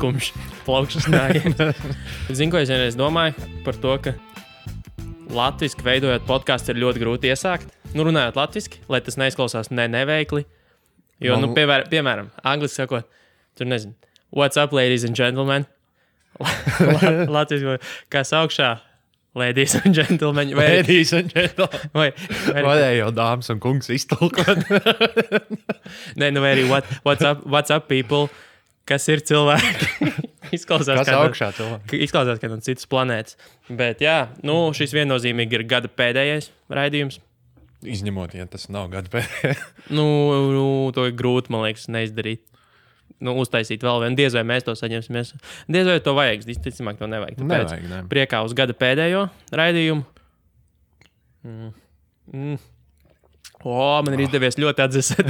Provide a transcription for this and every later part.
skumjš plaukšanas nājiens. Zinu, ko es vienreiz domāju par to, ka latviski veidojot podcastu ir ļoti grūti iesākt. Nu, runājot latviski, lai tas neizklausās neveikli. Jo, piemēram, angliski sakot, tur nezinu, what's up, ladies and gentlemen? Latviski, kas augšā? Ladies and gentlemen. Ladies and gentlemen. Vai jau dāmas un kungs iztulkot? Nē, vai arī what's up, people? Kas ir cilvēki? Izklausās, kas augšā cilvēki? Izklausās, ka no citas planētas. Bet jā, šis viennozīmīgi ir gada pēdējais raidījums. Izņemot, ja tas nav gada pēdējais. To ir grūti, man liekas, neizdarīt. Uztaisīt vēl vienu. Diez vai mēs to saņemsimies. Diez vai to vajag. Visticamāk, to nevajag. Tāpēc priekā uz gada pēdējo raidījumu. Man ir izdevies ļoti atdzesēt.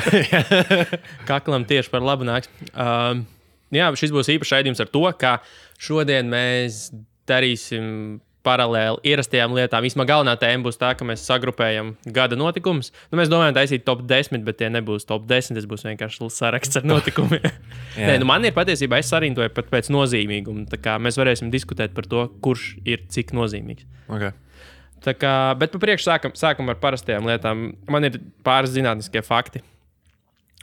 Kaklam tieši par labu nāks. Jā, šis būs īpašs raidījums ar to, ka šodien mēs darīsim paralēli ierastajām lietām. Vismaz galvenā tēma būs tā, ka mēs sagrupējam gada notikumus. Mēs domājam taisīt top 10, bet tie nebūs top 10, tas būs vienkārši saraksts ar notikumiem. Nē, man ir patiesībā, es sarintoju pat pēc nozīmīguma. Tā kā mēs varēsim diskutēt par to, kurš ir cik nozīmīgs. Okay. Tā kā, bet pa priekšu sākam ar parastajām lietām. Man ir pāris zinātniskie fakti.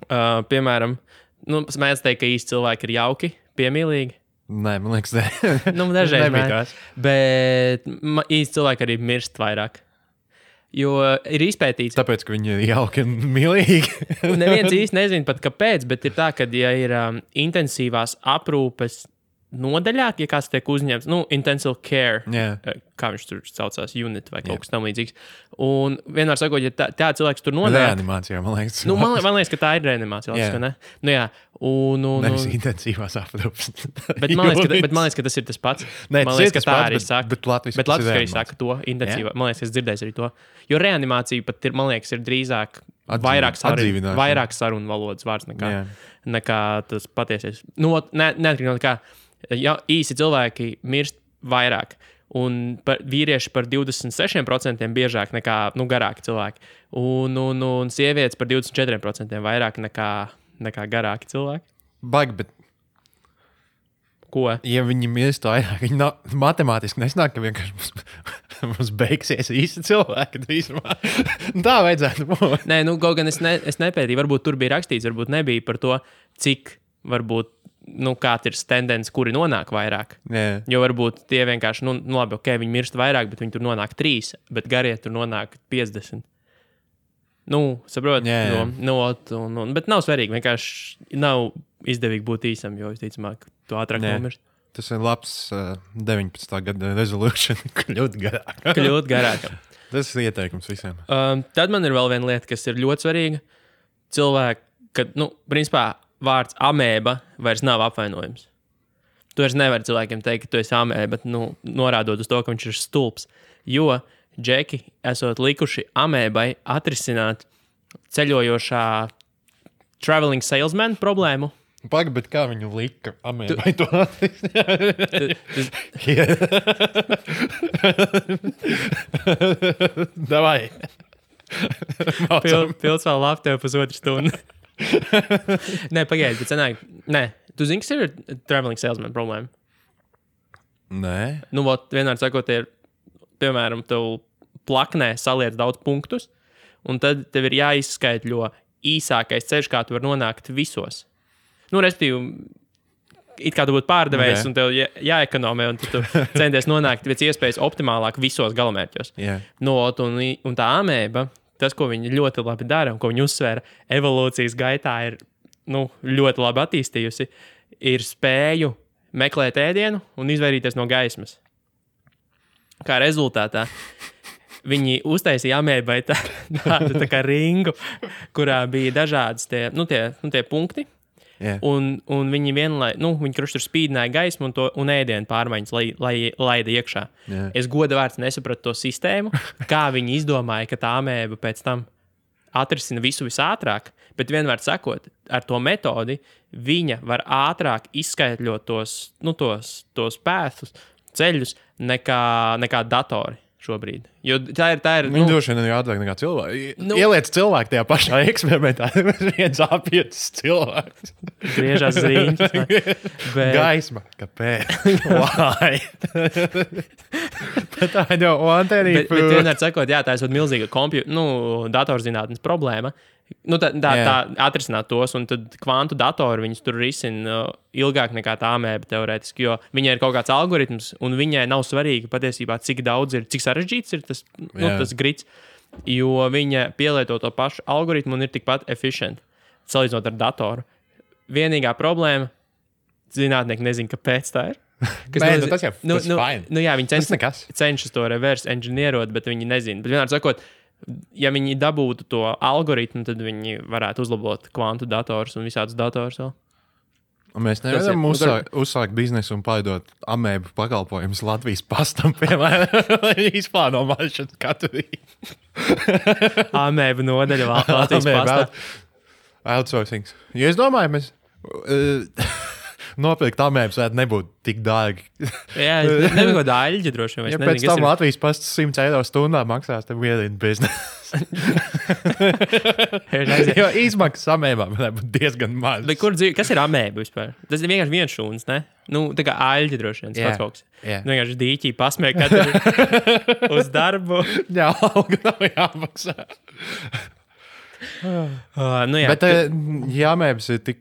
Piemēram, mēs teikt, ka īsti cilvēki ir jauki, piemīlīgi. Nē, man liekas, dažreiz nebija tās. Bet īsti cilvēki arī mirst vairāk. Jo ir izpētīts. Tāpēc, ka viņi ir jauki un mīlīgi. Neviens īsti nezina pat kāpēc, bet ir tā, ka ja ir intensīvās aprūpes nodaļā, ja kāds tiek uzņemts, intensive care, kā viņš tur saucās, unit vai kaut kas tam līdzīgs. Un vienmēr sakot, ja tā cilvēks tur nonāk... Reanimācijā, man liekas. Man liekas, ka tā ir reanimācija. Ne? Jā. Nevis intensīvās aprūpes. Bet man liekas, ka tas ir tas pats. Nē, man liekas, ka tā arī saka. Bet latviski arī saka to intensīvā. Man liekas, es dzirdēju arī to. Jo reanimācija pat ir, man liekas, ir drīzāk vairāk sarunu valodas vārds nekā tas patiesies. Neatkarīgi no kā. Ja, īsi cilvēki mirst vairāk, un vīrieši par 26% biežāk nekā garāki cilvēki, un sievietes par 24% vairāk nekā garāki cilvēki. Baigi, bet... Ko? Ja viņi mirst vairāk, viņi matemātiski nesnāk, ka vienkārši mums beigsies īsti cilvēki drīzumā. Tā vajadzētu būt. Nē, kaut gan es nepētīju, varbūt tur bija rakstīts, varbūt nebija par to, cik varbūt kāds ir tendence, kuri nonāk vairāk. Yeah. Jo varbūt tie vienkārši, labi, viņi mirst vairāk, bet viņi tur nonāk 3, bet garie tur nonāk 50. Saprot? Yeah. Bet nav svarīgi, vienkārši nav izdevīgi būt īsam, jo visticamāk, tu ātrāk nomirst. Tas ir labs 19. gada resolution, kļūt garāk. Tas ir ieteikums visiem. Tad man ir vēl viena lieta, kas ir ļoti svarīga. Cilvēki, kad, principā, vārds amēba vairs nav apvainojums. Tu vairs nevari cilvēkiem teikt, ka tu esi amēba, norādot uz to, ka viņš ir stulbs. Jo džeki esot likuši amēbai atrisināt ceļojošā traveling salesman problēmu. Pagaid, bet kā viņu lika amēbai to atrisināt? Davai. Pils vēl labi tev pusotru stundu. Nē, pagaidi, bet sanāk. Nē, tu zini, kas ir traveling salesman problēma? Nē. Vienmēr sakot, ir, piemēram, tev plaknē saliec daudz punktus, un tad tev ir jāizskaitļo īsākais ceļš, kā tu vari nonākt visos. Respektīvi, it kā tu būtu pārdevējs, un tev jāekonomē, un tu centies nonākt pēc iespējas optimālāk visos galamērķos. Yeah. Un tā amēba, tas, ko viņi ļoti labi dara un ko viņi uzsvēra evolūcijas gaitā, ir ļoti labi attīstījusi, ir spēju meklēt ēdienu un izvairīties no gaismas. Kā rezultātā viņi uztaisīja amēbai tādu tā kā ringu, kurā bija dažādas tie punkti. Yeah. Un viņi viņi tur spīdināja gaismu un ēdienu pārmaiņas, lai laida iekšā. Yeah. Es goda vārds nesapratu to sistēmu, kā viņi izdomāja, ka tā amēba pēc tam atrisina visu visātrāk, bet vienmēr sakot, ar to metodi viņa var ātrāk izskaitļot tos pēthus, ceļus nekā datori. šobrīd. Jo tā ir Viņi droši vien ir ātrāk nekā cilvēki. Ieliec cilvēku tajā pašā eksperimentā. Viens apietis cilvēks. Griežās ziņas. Gaisma. Kāpēc? Why? Bet tā jau antenī. Bet vienmēr sakot, jā, tā ir milzīga datorzinātnes problēma. Tā atrisināt tos, un tad kvantu datori viņus tur risina ilgāk nekā tā amēba teorētiski, jo viņai ir kaut kāds algoritms, un viņai nav svarīgi patiesībā, cik sarežģīts ir tas grits, jo viņa pielieto to pašu algoritmu un ir tikpat efficient, salīdzinot ar datoru. Vienīgā problēma, zinātnieki nezina, kāpēc tā ir. Tas jau fine. Jā, viņi cenšas to reverse engineerot, bet viņi nezina. Bet vienmēr sakot, ja viņi dabūtu to algoritmu, tad viņi varētu uzlabot kvantu dators un visādus dators vēl. Mēs nevaram uzsākt biznesu un pārdot amēbu pakalpojumus Latvijas pastam, piemēram, lai izplāno mašanu katru rītu. Amēbu nodaļa Latvijas pastā. Outsourcing. Ja es domāju, mēs nopirkt amēbas varētu nebūt tik dārgi. Jā, nebija kaut daļģi droši vien. Ja pēc tam Latvijas pasts 100 eiro stundā maksās, tad vienīgi biznesu. Jo izmaksas amēbām varētu būt diezgan maz. Kas ir amēba vispār? Tas ir vienkārši viens šūns, ne? Tā kā aļģi droši vien, tas kaut kas. Vienkārši dīķī pasmēja katru uz darbu. Jā, alga nav jāmaksā. Bet ja amēbas ir tik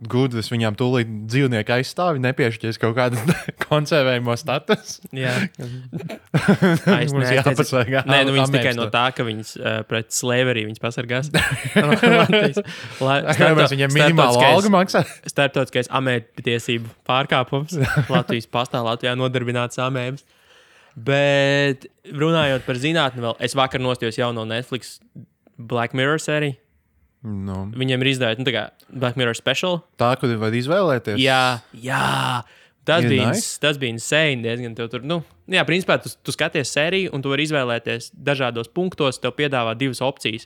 gudras, viņām tūlīt dzīvnieki aizstāvi, nepiešķies kaut kādas konservējumos status. Jā. Mums jāpasargā. Viņas tikai no tā, ka viņas pret slavery viņas pasargās. Viņam minimālu algu maksā. Starptautiskais amēbu tiesību pārkāpums. Latvijas pastā Latvijā nodarbināts amēbas. Bet runājot par zinātni vēl, es vakar nostījos jauno Netflix Black Mirror sēriju. No. Viņiem ir izdevīta Black Mirror special. Tā, kur var izvēlēties. Jā. Tas bija insane diezgan. Principā tu skaties sēriju un tu vari izvēlēties dažādos punktos, tev piedāvā divas opcijas,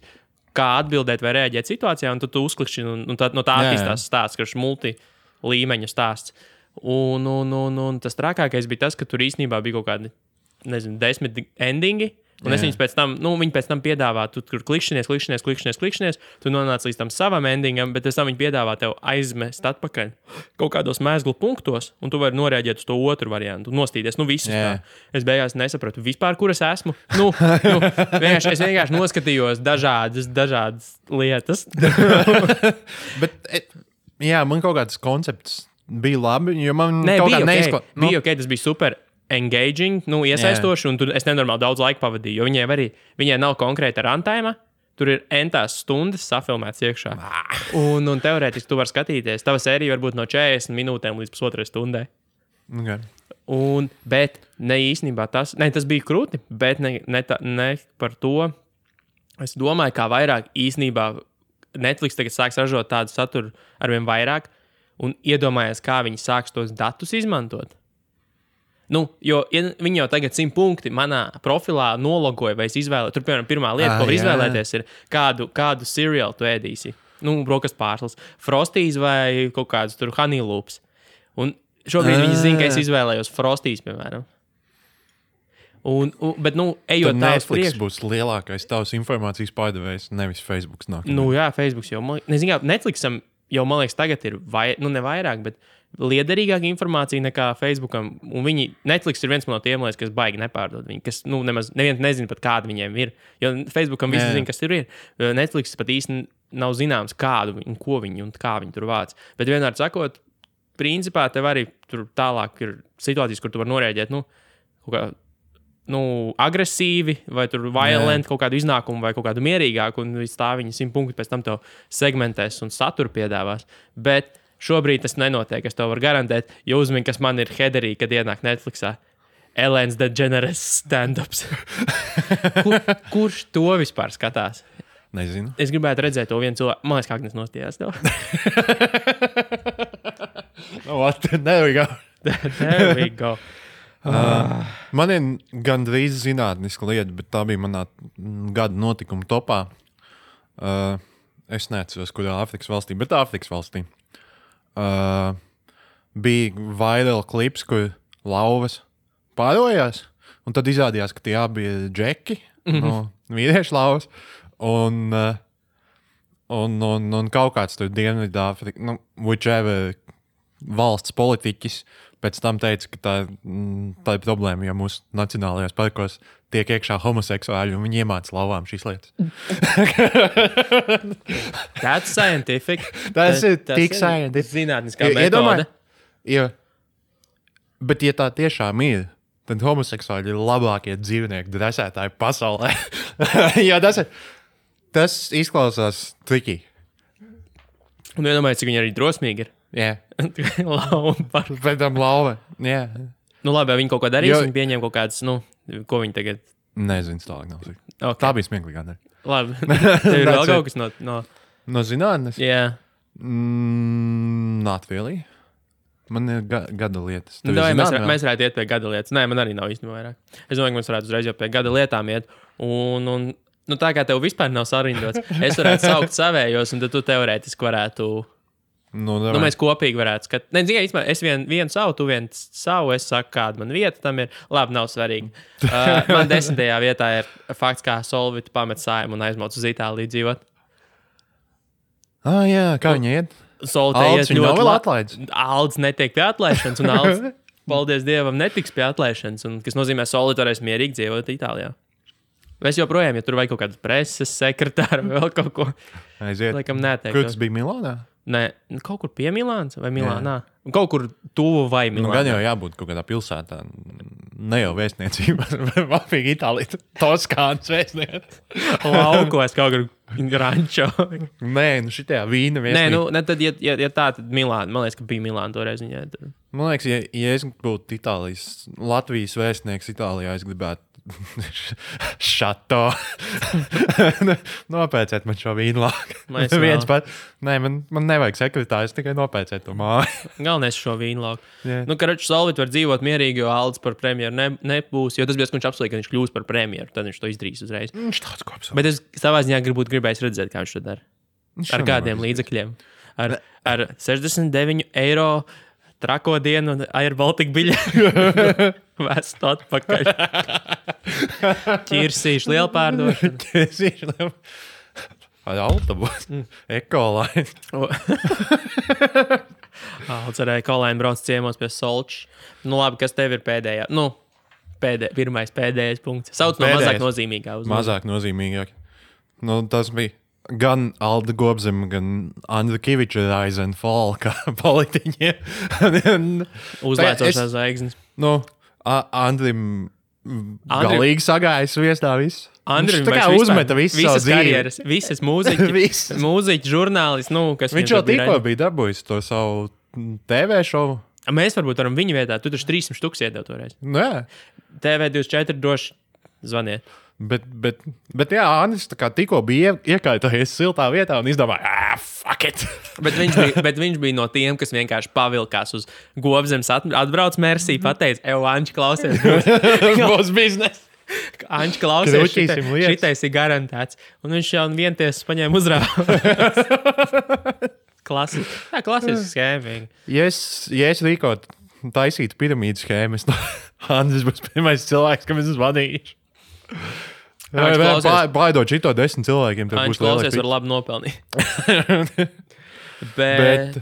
kā atbildēt vai reaģēt situācijā, un tu uzklikšķi, un no tā attīstās stāsts, kurš multilīmeņu stāsts. Un tas trakākais bija tas, ka tur īstenībā bija kaut kādi, 10 endingi. Un es viņus pēc tam piedāvā, tu tur klikšķinies, tu nonāc līdz tam savam endingam, bet pēc tam viņi piedāvā tev aizmest atpakaļ kaut kādos mēzglu punktos, un tu vari norēģēt uz to otru variantu, nostīties, visus tā. Es beigās nesapratu vispār, kur es esmu. Es vienkārši noskatījos dažādas lietas. Bet, man kaut kāds koncepts bija labi, jo man bija ok, tas bija super engaging, iesaistoši, un es nenormāli daudz laika pavadīju, jo viņai nav konkrēta runtime, tur ir entās stundas safilmēts iekšā. Un teorētiski tu vari skatīties, tava sērija var būt no 40 minūtēm līdz pusotrai stundai. Okay. Bet ne īstenībā tas bija krūti, bet ne par to. Es domāju, kā vairāk īstenībā Netflix tagad sāks ražot tādu saturu arvien vairāk, un iedomājies, kā viņi sāks tos datus izmantot. Jo viņi jau tagad 100 punkti manā profilā nologoja, vai es izvēlēju. Tur, piemēram, pirmā lieta, ko var izvēlēties, ir kādu cereālu tu ēdīsi. Brokastu pārslas, Frosties vai kaut kādus tur honey loops. Un šobrīd viņi zina, ka es izvēlējos Frosties, piemēram. Bet, ejot tā uz priekšu. Netflix būs lielākais tavs informācijas pārdevējs, nevis Facebooks nāk. Jā, Facebooks jau, Netflixam jau, man liekas, tagad ir ne vairāk, bet liederīgāka informācija nekā Facebookam. Un Netflix ir viens no tiem, kas baigi nepārdod viņu, kas neviens nezina pat kāda viņiem ir. Jo Facebookam visi zina, kas tur ir. Netflix pat īsti nav zināms kādu un ko viņi un kā viņi tur vāc. Bet vienmēr sakot, principā tev arī tur tālāk ir situācijas, kur tu vari norēģēt, agresīvi vai tur violent kaut kādu iznākumu vai kaut kādu mierīgāku, un līdz tā viņi 100 punktu pēc tam tev segmentēs un saturu piedāvās. Bet šobrīd tas nenotiek, es tev varu garantēt, jo uzmini, kas man ir headerī, kad ienāk Netflixā. Ellen's DeGeneres stand-ups. Kurš to vispār skatās? Nezinu. Es gribētu redzēt to vienu cilvēku. Man liekas, kā Agnes nostījās tev. There we go. There we go. Man ir gandrīz zinātniska lieta, bet tā bija manā gada notikuma topā. Es neatceros, kurā Āfrikas valstī, bet Āfrikas valstī. Bija viral klips, kur lauvas pārojās Un tad izrādījās, ka tie abi ir džeki no vīriešu lauvas. Un kaut kāds tur Dienvidāfrika, whichever valsts politiķis pēc tam teica, ka tā ir problēma, ja mūsu nacionālajos parkos tiek iekšā homoseksuāļi un viņi iemāca lauvām šīs lietas. That's scientific. Tas ir tik scientific. Zinātniskā metode. Bet ja tā tiešām ir, tad homoseksuāļi ir labākie dzīvnieku dresētāji pasaulē. Jo tas izklausās tricky. Un iedomājies, cik viņi arī drosmīgi ir. Jā. Lauva. Pēc tam lauva. Jā. Nu labi, viņi kaut ko darīs, viņi pieņem kaut kādas, ko viņi tagad... Nezinu, tālāk nav. Okay. Tā bija smieklīgā. Labi. Tev ir vēl kaut kas no... No zinātnes? Jā. Not really. Man ir gada lietas. Mēs varētu iet pie gada lietas. Nē, man arī nav īstenībā vairāk. Es domāju, ka mēs varētu uzreiz jau pie gada lietām iet. Un tā kā tev vispār nav sarindots, es varētu saukt savējos, un tad tu teorētiski varētu... mēs kopīgi varētu skatīt. Nē, īstenībā es vienu savu, tu vienu savu, es saku, kāda man vieta tam ir. Labi, nav svarīgi. Man 10. vietā ir fakts, kā Solvita pamet Saimu un aizmauc uz Itāliju dzīvot. Jā, kā viņi iet? Solvita iet ļoti labi. Aldis netiek pie atlaišanas, un Aldis, paldies Dievam, netiks pie atlaišanas, un, kas nozīmē, Solvita varēs mierīgi dzīvot Itālijā. Es joprojām, ja tur vajag kaut kādu preses sekretāru vai vēl kaut ko. Aiziet. Laikam neteiktu. Kur tas bija Milānā? Nē, kaut kur pie Milānas vai Milānā. Kaut kur tuvu vai Milānā. Gan jau jābūt kaut kādā pilsētā. Ne jau vēstniecībā. Vapīgi Itālija. Toskāns vēstniec. Laukos kaut kur Grančo. Nē, šitajā vīna vēstniec. Nē, tad, ja tā, tad Milāna. Man liekas, ka bija Milāna toreiz. Man liekas, ja es būtu Latvijas vēstnieks Itālijā, es gribētu šato. Nopēcēt man šo vīnlāku. Nē, man nevajag sekretārs, tikai nopēcēt to māju. Galvenais šo vīnlāku. Yeah. Karaču Solvit var dzīvot mierīgi, jo Aldis par premjeru nebūs, jo tas bija, ka viņš apsolīja, ka viņš kļūs par premjeru, tad viņš to izdarīs uzreiz. Viņš tāds ko apsolīja. Bet es savā ziņā gribējis redzēt, kā viņš to dara. Ar kādiem līdzekļiem. Ar 69 eiro trako dienu un Air Baltica biļeti. Vēstu atpakaļ. Ķirsīšu lielu pārdošanu. Ķirsīšu lielu. Ar autobusu. Ekolaini. Aldis ar Ekolaini brauc ciemos pie Solča. Labi, kas tev ir pēdējā? Pēdējais punkts. Sauc no mazāk nozīmīgā. Mazāk nozīmīgāk. Tas bija gan Alda Gobzema, gan Andra Kiviča rise and fall, kā politiķiem. Uzlēcošās zvaigznes. Andrim galīgi sagājis viestā viss. Andrim tā kā uzmeta visu savu karjeras, visas mūziķi, žurnālisti, kas viņš jau tikko bija dabūjis to savu TV šovu. Mēs varbūt varam viņa vietā, tu taču 300 štuks iedev toreiz. Nē. TV24 droši zvaniet. Bet jā, Andris tikko bija iekaitojies siltā vietā un izdomāja, fuck it. bet viņš bija no tiem, kas vienkārši pavilkās uz Gobzemes atbrauc Mersī, pateica, Anči, klausies, būs biznes. Anči, klausies, šitais ir garantēts. Un viņš jau vientiesas paņēma uzrāvu. Klasisks schēma. Ja es rīkot taisītu piramīdu schēmas, Andris būs pirmais cilvēks, kam es vadīšu. Baidot šito 10 cilvēkiem. Viņš klausies var labi nopelnīt. Bet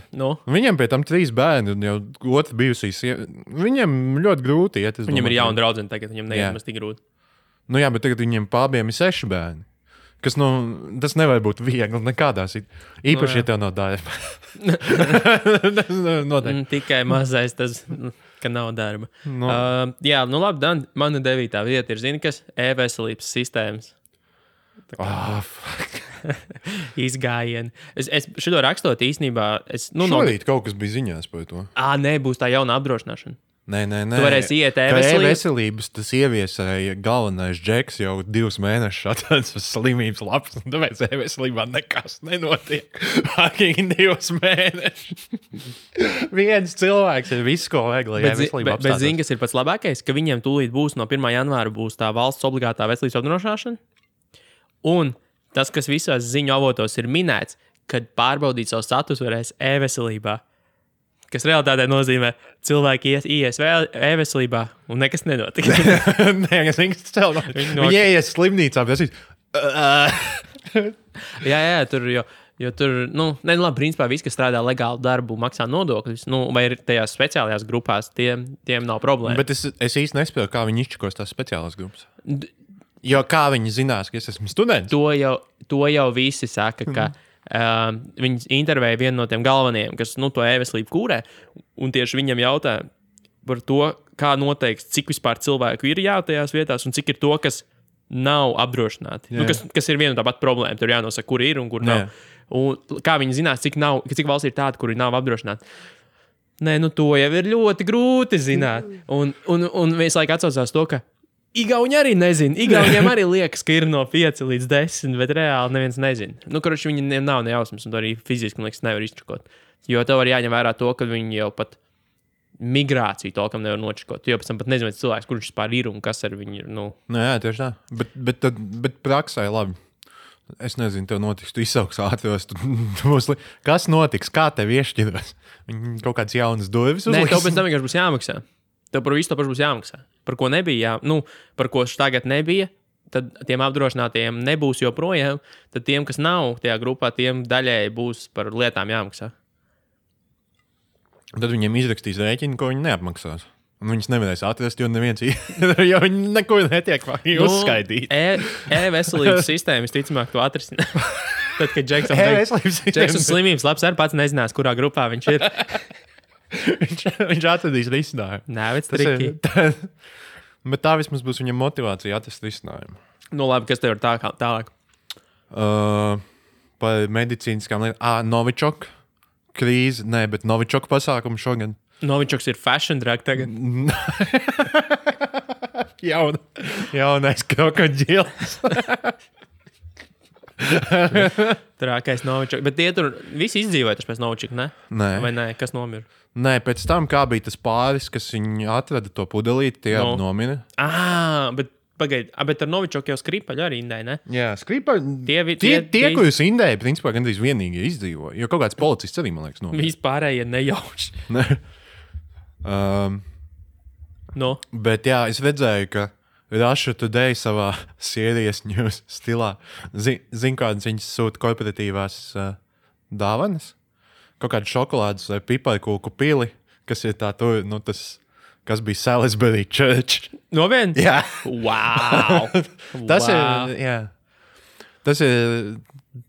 viņam pie tam 3 bērni un jau otrs bijusīs. Viņam ļoti grūti iet. Viņam ir jauna draudzene tagad, viņam neiet tik grūti. Jā, bet tagad viņiem pārbiem ir 6 bērni. Kas, tas nevar būt viegli nekādā situācijā. Īpaši, ja tev nav darba. Tikai mazais tas, ka nav darba. Labi, Dan, mana 9. vieta ir, zini, kas? E-veselības sistēmas. Izgājieni. Es šito rakstot īstenībā... Šorīt kaut kas bija ziņās par to. Nē, būs tā jauna apdrošināšana. Nē. Tu varēsi iet e-veselības, tas ieviesēja galvenais džeks jau 2 mēnešus atrādās uz slimības lapas, un tāpēc e-veselībā nekas nenotiek. Fakīgi 2 mēnešus. Viens cilvēks ir visu, ko vajag, lai e-veselība apstādās. Bet zini, kas ir pats labākais? Ka viņiem tūlīt būs no 1. janvāra būs tā valsts obligātā veselības apdrošināšana. Un tas, kas visās ziņu avotos ir minēts, kad pārbaudīt savu statusu varēs e-veselībā. kas realitātē nozīmē cilvēki ies e-veselībā un nekas nenotiks. Nē, es viņas cēlu. Viņi ies slimnīcā, bet es jā, tur jo tur, labi, principā viss, kas strādā legālu darbu, maksā nodokļus, vai ir tajās speciālajās grupās, tiem nav problēma. Bet es īsti nespēju, kā viņi izčakos tās speciālās grupas. Jo kā viņi zinās, ka es esmu students? To jau visi saka, ka viņi intervēja vienu no tiem galvenajiem, kas to e-veselību kūrē, un tieši viņam jautā par to, kā noteiks, cik vispār cilvēku ir tajās vietās, un cik ir to, kas nav apdrošināti. Kas ir viena tā pati problēma. Tur jānosaka, kur ir un kur nav. Un kā viņi zinās, cik valsts ir tāda, kuri nav apdrošināti. Nē, to jau ir ļoti grūti zināt. Un visu laiku atsaucās to, ka Igauni arī nezina. Igauniem arī liekas, ka ir no 5 līdz 10, bet reāli neviens nezina. Kurš viņiem nav nejausmas, un to arī fiziski, man liekas, nevar izčakot. Jo tev var jāņem vērā to, ka viņi jau pat migrāciju tolkam nevar nočakot. Jo pēc tam pat nezinu, cilvēks, kurš vispār ir un kas ar viņu ir. Jā, tieši tā. Bet praksē labi. Es nezinu, tev notiks, tu izsauks ātros. Kas notiks? Kā tev iešķiros? Viņi kaut kāds jaunas durvis uzliks? Nē, tev pēc tam vienkārši būs jāmaksā. Tev par visu to pašu būs jāmaksā. Par ko nebija, par ko tagad nebija, tad tiem apdrošinātiem nebūs joprojām. Tad tiem, kas nav tajā grupā, tiem daļēji būs par lietām jāmaksā. Tad viņiem izrakstīs rēķinu, ko viņi neapmaksās. Un viņus nevarēs atrast, jo neviens jo viņi neko netiek uzskaitīt. E-veselības sistēma visticamāk to atrisinās. Tad, kad Džeksons slimības labs arī pats nezinās, kurā grupā viņš ir. viņš atradīs risinājumu. Nē, bet triki. Bet tā vismaz būs viņam motivācija atrast risinājumu. Labi, kas tev ir tālāk? Par medicīniskām lietām. Novičok krīze. Nē, bet Novičok pasākumu šogad. Novičoks ir fashion drag tagad. Jaunais krokodils. Trākais Novičoks. Bet tie tur visi izdzīvoja pēc Novičoka, ne? Nē. Vai nē? Kas nomira? Nē, pēc tam, kā bija tas pāris, kas viņi atrada to pudelīti, tie nomira. Bet pagaid, bet ar Novičoku jau Skripaļu arī indēja, ne? Jā, Skripaļu. Tie, ko jūs indēja, principā gandrīz vienīgi izdzīvoja. Jo kaut kāds policists arī, man liekas, nomira. Vispārējie nejauši. Bet jā, es redzēju, ka Russia Today savā Serious News stilā zin kādas viņas sūta korporatīvās dāvanas. Kaut kādu šokolādes vai piparkūku pili, kas ir tā tur, kas bija Salisbury Church. Noviens? Jā. Wow! Tas ir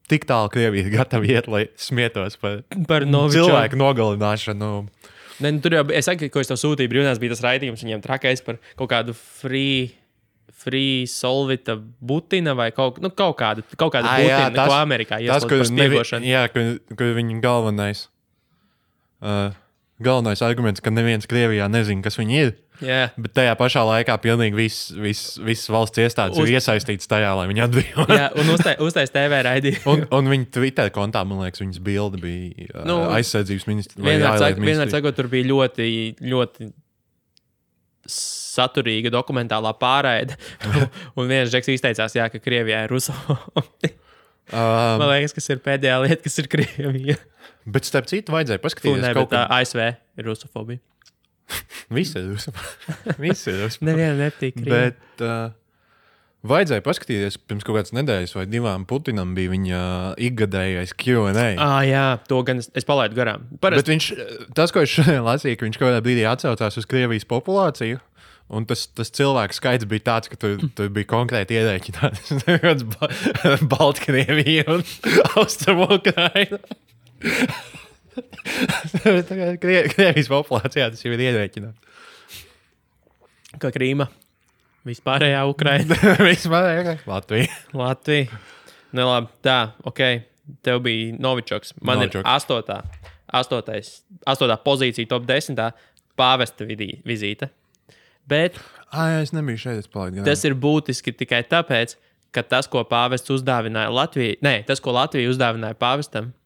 tik tālu Krievija gatavi iet, lai smietos par cilvēku nogalināšanu. Ne, tur jau, es saku, ko es tev sūtīju brīvdienās, bija tas raidījums viņiem trakais par kaut kādu free solvita butina vai kaut kādu butina, ko Amerikā ieslēdz par spiegošanu. Jā, kur viņa galvenais arguments, ka neviens Krievijā nezina, kas viņi ir. Yeah. Bet tajā pašā laikā pilnīgi viss valsts iestādes ir iesaistīts tajā, lai viņi atbrīvotu. Jā, un uztais TV raidījumu. un viņa Twitter kontā, man liekas, viņas bilde bija aizsardzības ministrs. Vienmēr sakot, tur bija ļoti, ļoti saturīga dokumentālā pārraide. Un viens žeks izteicās, ka Krievijā ir rusofobi. Man liekas, kas ir pēdējā lieta, kas ir Krievija. Bet starp citu vajadzēja paskatīties. ASV ir rusofobija. Viss ir rusofobija. Nevienam nepatīk Krievija. Bet vajadzēja paskatīties, pirms kaut kādas nedēļas vai divām Putinam bija viņa ikgadējais Q&A. Jā, to gan es palaidu garām. Bet tas, ko es šodien lasīju, ka viņš kaut kādā brīdī atsaucās uz Krievijas populāciju, un tas cilvēku skaits bija tāds, ka tur bija konkrēti ierēķināts Baltkrievija un Austrumu-Ukraina. Krievijas populācijā tas jau ir ierēķināts. Kā Krīma. Vispārējā Ukraina. Vispārējā Latvija. Labi, tā, ok. Tev bija Novičoks. Man ir 8. pozīcija top 10. Pāvesta vizīte. Bet es nebiju šeit, tas ir būtiski tikai tāpēc, ka tas, ko pāvests uzdāvināja Latvijai, tas, ko Latvija uzdāvināja pāvestam,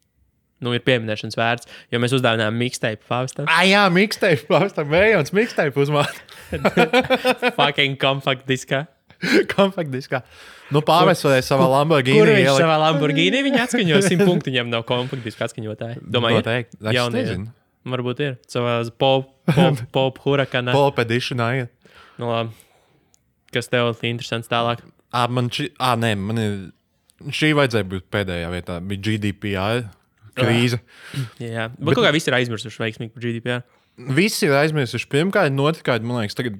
ir pieminēšanas vērts, jo mēs uzdāvinājām mixtape pāvestam. Jā, mixtape pāvestam, vējons mixtape uzmāt. Fucking compact diskā. Compact diskā. Pāvests varēja savā Lamborghini. Kur viņš savā Lamborghini viņa atskaņo? 100 punktu viņam nav compact diska atskaņotāji. Domāju, es nezinu. Varbūt ir. Savā pop hurakanā. Pop editionā, ja. Nu, labi. Kas tev ir interesants tālāk? Man ir... Šī vajadzēja būt pēdējā vietā. Bija GDPR krīze. Jā. Bet kaut kā visi ir aizmirsuši veiksmīgi par GDPR. Visi ir aizmirsuši. Pirmkārt, notikārt, man liekas, tagad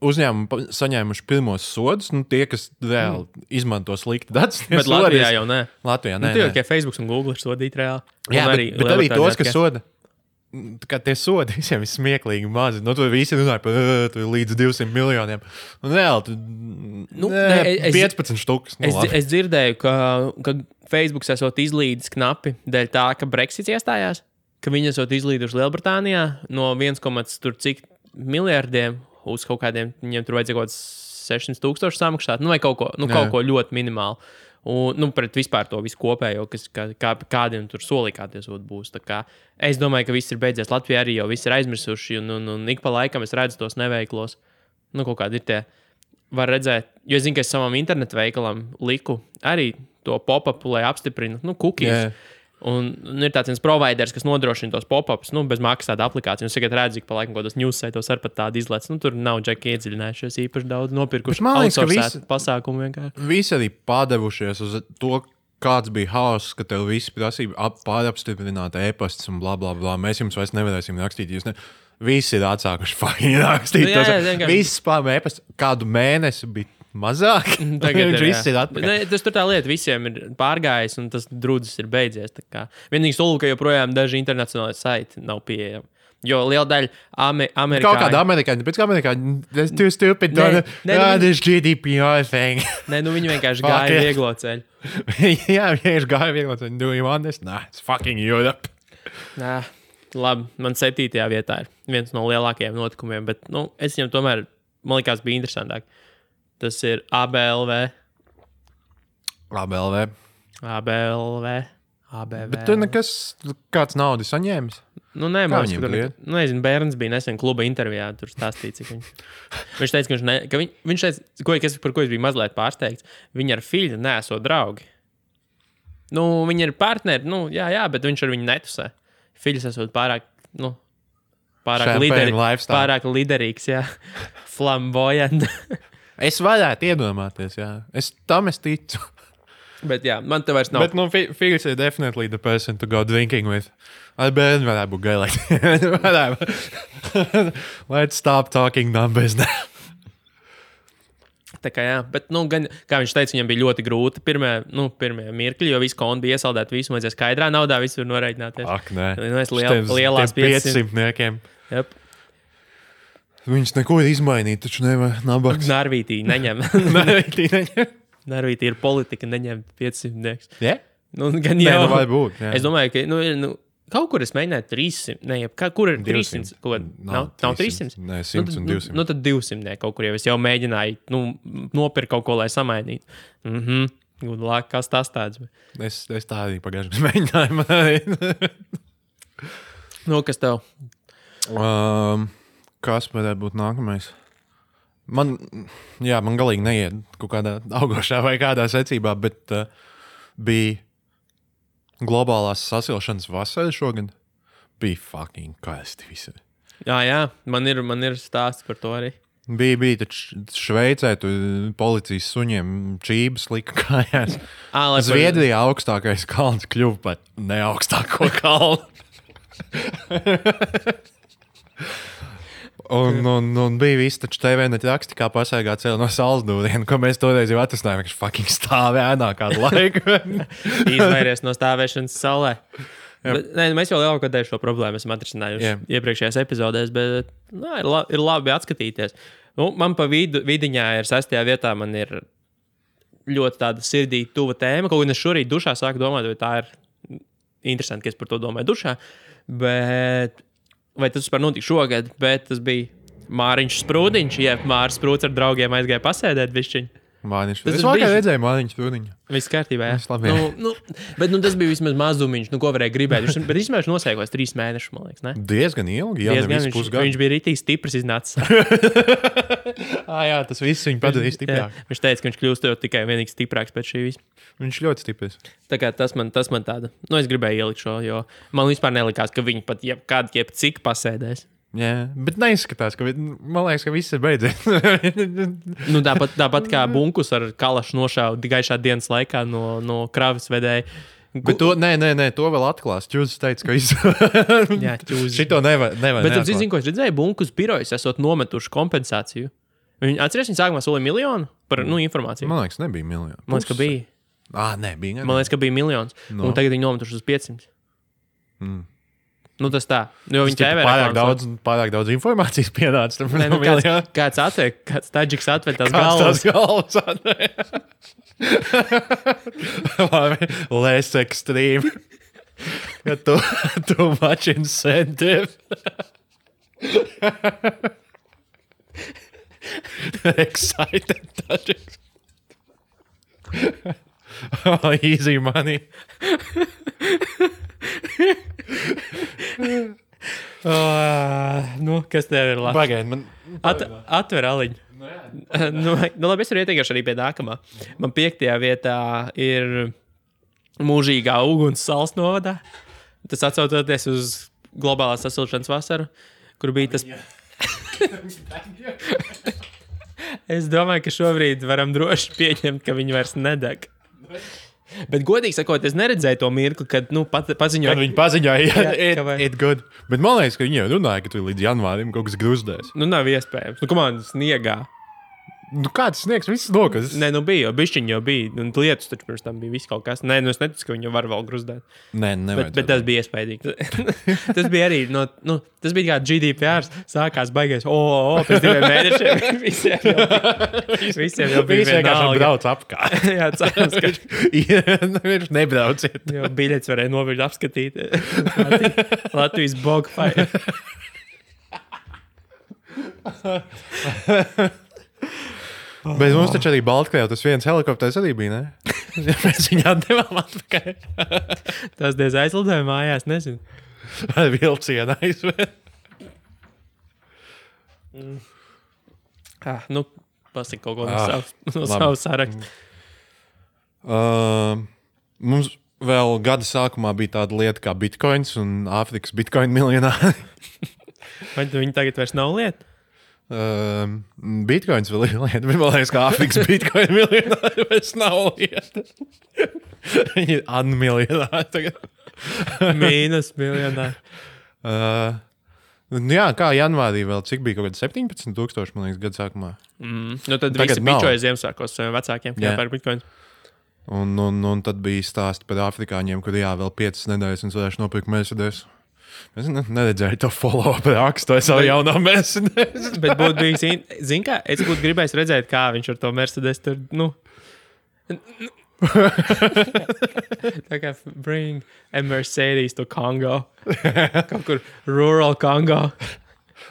uzņēmumi saņēmuši pirmos sodus. Nu, tie, kas reāli izmanto slikti datus. Bet Latvijā jau nē. Latvijā nē. Nu, tikai Facebook un Google ir sodīti reāli. Jā, bet arī tos, kas soda. Kā tie sodi visiem ir smieklīgi mazi. Nu, tur visi runāja par līdz 200 miljoniem. Un reāli, 15 štukas. Es dzirdēju, ka Facebook esot izlīdis knapi dēļ tā, ka Brexits iestājās, ka viņi esot izlīduši Lielbritānijā no 1,cik miljardiem uz kaut kādiem, viņiem tur vajadzēja kaut 600,000 samaksāt, nu vai kaut ko ļoti minimālu. Un, pret vispār to visu kopējo, kādiem tur solīkāties būs. Es domāju, ka viss ir beidzies. Latvijā arī jau viss ir aizmirsuši, un ik pa laikam es redzu tos neveiklos. Nu, kaut kādi ir tie. Var redzēt, jo es zinu, ka es savam internetu veikalam liku arī to pop-upu, lai apstiprinu, cookies. Yeah. Un ir tāds viens providers, kas nodrošina tos pop-ups, bez maksas tāda aplikācija. Un es tagad redzu, ka pa laikam kaut kādos news saitos ar pat tādu izlēc. Tur nav džeki iedziļinājušies īpaši daudz nopirkuši. Man liekas, ka visi pasākumu vienkārši. Visi arī padevušies uz to, kāds bija hauss, ka tev visi prasība pārapstiprināt e-pastus un bla, bla, bla. Mēs jums vairs nevarēsim rakstīt. Visi ir atsākuši fucking rakstīt. Visi spām e-pastu kādu mēnesi bija mazāk. Tagad viss ir atpakaļ. Tas tur tā lieta, visiem ir pārgājis un tas drudzis ir beidzies. Vienīgi sulu, ka joprojām daži internacionāli saiti nav pieejami. Jo liela daļa amerikāņu... Kaut kāda amerikāņa, pēc kā amerikāņa, that's too stupid, this GDPR thing. Nē, viņi vienkārši gāja vieglo ceļu. Jā, vienkārši gāja vieglo ceļu. Do you want this? Nah, it's fucking Europe. Nā, labi, man 7. vietā ir viens no lielākajiem notikumiem, bet, es viņam tomēr, man likās, bija interesantāk. Tas ir ABLV. Bet tu nekas, kāds naudas saņēmis? Nē, man nezinu, bērns bija nesen kluba intervijā, tur stāstīja, cik viņš teica, viņš teica, par ko es biju mazliet pārsteigts, viņi ar Fiļu neesot draugi. Viņi ir partneri, jā, bet viņš ar viņu netusē. Fiļs esot pārāk liderīgs, jā, flamboyant. Es varētu iedomāties, jā. Es ticu. Bet jā, man te vairs nav. Bet, Figs ir definitely the person to go drinking with. Ar bērnu varētu būt gailēt. Let's stop talking numbers now. Tā kā jā, bet, gan, kā viņš teica, viņam bija ļoti grūti pirmie mirkļi, jo visu kontu bija iesaldēt, visu vajadzēja skaidrā naudā, visu var noreiķināties. Ak, nē. Lielās 500. Jep. Viņš neko ir izmainīt, taču nevar nabaks. Narvītī neņem. Narvītī ir politika neņemt 500. Yeah? Gan jau. Vai būt, jā. Es domāju, ka, kaut kur es mēģināju 300, kur ir 300? Nav 300? Nē, 100 un 200. Tad 200 kaut kur jau es jau mēģināju, nopirkt kaut ko, lai samainītu. Good luck, kas tas tāds? Es tā arī pagājuši mēģināju. Kas tev? Kas varētu būt nākamais? Man galīgi neiet kaut kādā augošā vai kādā secībā, bet bija globālās sasilšanas vasara šogad. Bija fucking karsti visi. Jā, man ir stāsts par to arī. Bija taču Šveicē, tur policijas suņiem čības lika kājās. Zviedrijā augstākais kalns kļuva par neaugstāko kalnu. Un bija viss, taču TV net raksti, kā pasēgāt ceļu no Salzdūrienu, ko mēs toreiz jau atrasinājām, ka fucking stāvē ēnā kādu laiku. Izvairies no stāvēšanas saulē. Bet, mēs jau lielāko daļu šo problēmu esam atrisinājuši iepriekšējās epizodēs, bet ir labi atskatīties. Man pa vidiņā ir 6. vietā, man ir ļoti tāda sirdī tuva tēma, kaut gan es šorīt dušā sāku domāt, vai tā ir interesanti, ka es par to domāju dušā, bet... Vai tas vispār notika šogad, bet tas bija Māriņš Sprūdiņš, Māris Sprūds ar draugiem aizgāja pasēdēt bišķiņu. Māniņš. Tas Es ir vakar bijis- redzēju Māniņš turiņu. Viss kārtībā, jā. Viss labi, jā. Bet tas bija vismaz mazumiņš, ko varēja gribēt. Bet īstenībā viņš nosēkos 3 mēnešus, man liekas, ne? Diezgan ilgi, jā, Diezgan, nevis pusgadu. viņš bija rītīgi stiprs iznācis. Jā, tas viss viņu padarīja stiprāk. Jā, viņš teica, ka viņš kļūst jau tikai vienīgi stiprāks pēc šī visa. Viņš ļoti stiprs. Tā kā tas man tāda, es gribēju ielikt šo, jo man vispār nelikās, ka viņi pat jebcik pasēdēs. Jā, bet neizskatās, ka man liekas, ka viss ir beidzies. Tāpat kā bunkus ar kalašu nošāva gaišā dienas laikā no kravas vedēja. Bet to, nē, to vēl atklās. Čūzis teica, ka viss. Jā, ķūzis. Šito nevar. Bet es zinu, ko es redzēju, bunkus birojas esot nometuši kompensāciju. Atceries, viņi sākumā solīja 1 miljonu par informāciju. Man liekas, nebija miljonu. Man liekas, ka bija. Nē, bija. Man liekas, ka bija 1 miljons. No. Un tagad viņi nometuši uz 500. Tas tā. Jo viņi ķēpē pārāk daudz informācijas pienāca. Kāds atver, kāds taģiks atver tās Kāds galvas. tās galvas atver. Less extreme. Ja too much incentive. Excited taģiks. Easy money. Kas tev ir labi? Pagaid, man... Atver aliņu. Labi, es varu ieteikšu arī pie nākamā. Man 5. vietā ir mūžīgā uguns Salas novadā. Tas atsaucoties uz globālās sasilšanas vasaru, kur bija tas... Es domāju, ka šobrīd varam droši pieņemt, ka viņi vairs nedeg. Bet, godīgi sakot, es neredzēju to mirkli, kad paziņoja. Kad viņi paziņoja, ka it good. Bet man liekas, ka viņi jau runāja, ka tu līdz janvārim kaut kas gruzdēs. Nav iespējams. Komandas sniegā. Kāds sniegs? Viss nokas. Nē, bija jau bišķiņi jau bija. Lietus taču pirms tam bija viss kaut kas. Nē, es neticu, ka viņi var vēl gruzdēt. Nē, nevajag. Bet tas bija iespaidīgi. Tas bija arī, tas bija kā GDPR. Sākās baigais, pēc 2 mēnešiem visiem jau bija vienkārši brauc apkārt. Jā, cerams, ka viņš nebrauciet. Jo biļets varēja noviļ apskatīt Latvijas bogfai. Bet mums taču arī Baltkrievā tas viens helikopters arī bija, ne? Mēs viņu atdevām atpakaļ. Tas diez aizlidoja mājās, nezinu. Ar vilcienu aizved. Pasaka kaut ko no savas saraksta. Mums vēl gada sākumā bija tāda lieta kā bitcoins un Āfrikas bitcoin miljonāri. Vai viņi tagad vairs nav lieta? Bitcoins vēl ir lieta, bet man liekas, ka Āfrikas bitcoin miljonāri vairs nav lieta. Viņi ir unmiljonāri tagad. Mīnus miljonāri. Jā, kā janvārī vēl, cik bija kaut kādi 17,000, man liekas, gada sākumā. Tad visi bičoja Ziemassvētkos saviem vecākiem, kā par bitcoin. Un tad bija stāsti par afrikāņiem, kur vēl 5 nedēļas un varēšu nopirkt Mercedes. Es neredzēju to follow-up rakstu, es jau jaunā Mercedes. Bet būtu bijis, zin kā, es būtu gribējis redzēt, kā viņš ar to Mercedes tur, tā kā bring a Mercedes to Congo. Kaut kur rural Congo.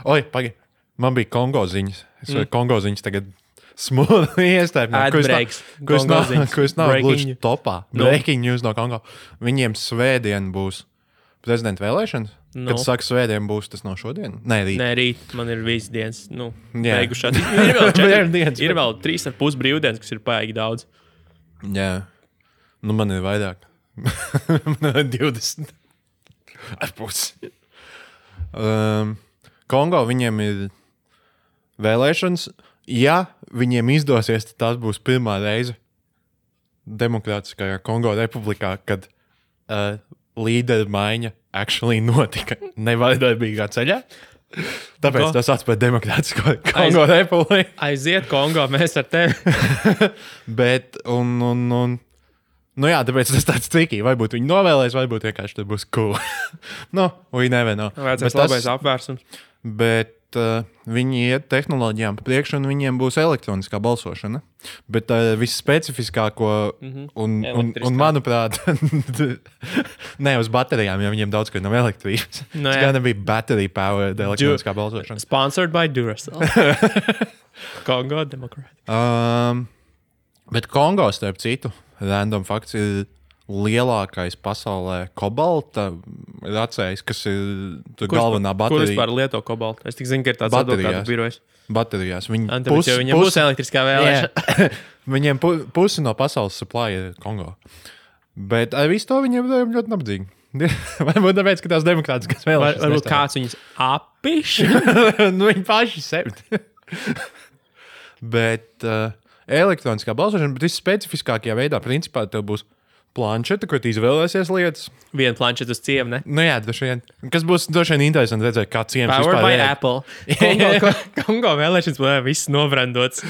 Oi, pagaid, man bija Kongo ziņas. Es varu Kongo ziņas tagad smūgi iestājumā. Kurš nav gluži topā. Breaking news no Kongo. Viņiem svētdien būs prezidenta vēlēšanas. Kad saka svētdien būs, tas no šodien? Nē, rīt. Man ir visas dienas, beigušās. Ir vēl 3,5 brīvdienas, kas ir paigi daudz. Jā. Man ir vairāk. Man ir 20. Ar pusi. Kongo viņiem ir vēlēšanas. Ja viņiem izdosies, tad tās būs pirmā reize Demokrātiskajā Kongo republikā, kad līderu maiņa actually notika nevardarbīgā ceļā. Tāpēc tas atspēr Demokrātisko Kongo republiku. Aiziet Kongo, mēs ar tevi. Bet, tāpēc tas tāds tricky. Varbūt viņi novēlēs, varbūt vienkārši tas būs cool. We never know. Vajadzēs labais apvērsums. Bet viņi iet tehnoloģijām pa priekšu, un viņiem būs elektroniskā balsošana. Bet visspecifiskāko, un manuprāt, ne uz baterijām, jo viņiem daudz, ka nav elektrības. Tas gan bija battery powered elektroniskā balsošana. Sponsored by Duracell. Kongo Democratic. Bet Kongo, starp citu, random fakts ir lielākais pasaulē kobalta racējs, kas ir galvenā Kur baterija. vispār lieto kobaltu? Es tik zinu, ka ir tāds Baterijās. advokātu birojs. Baterijās. Viņam būs elektriskā vēlēšana. Viņiem pusi no pasaules supply ir Kongo. Bet ar visu to viņiem ļoti nabadzīgi. Varbūt tāpēc, ka tās demokrātiskas vēlēšanas. Varbūt kāds viņus apiš. Viņi paši sevi. Bet elektroniskā balsošana, bet viss specifiskākajā veidā, principā tev būs planšeta, kur tu izvēlēsies lietas. Vienu planšetu uz ciemu, ne? Nu jā, droši vien. Kas būs droši vien interesanti redzēt, kā ciems Powered vispār by ir. Apple. Kongo vēlēšanas būs viss nobrandots.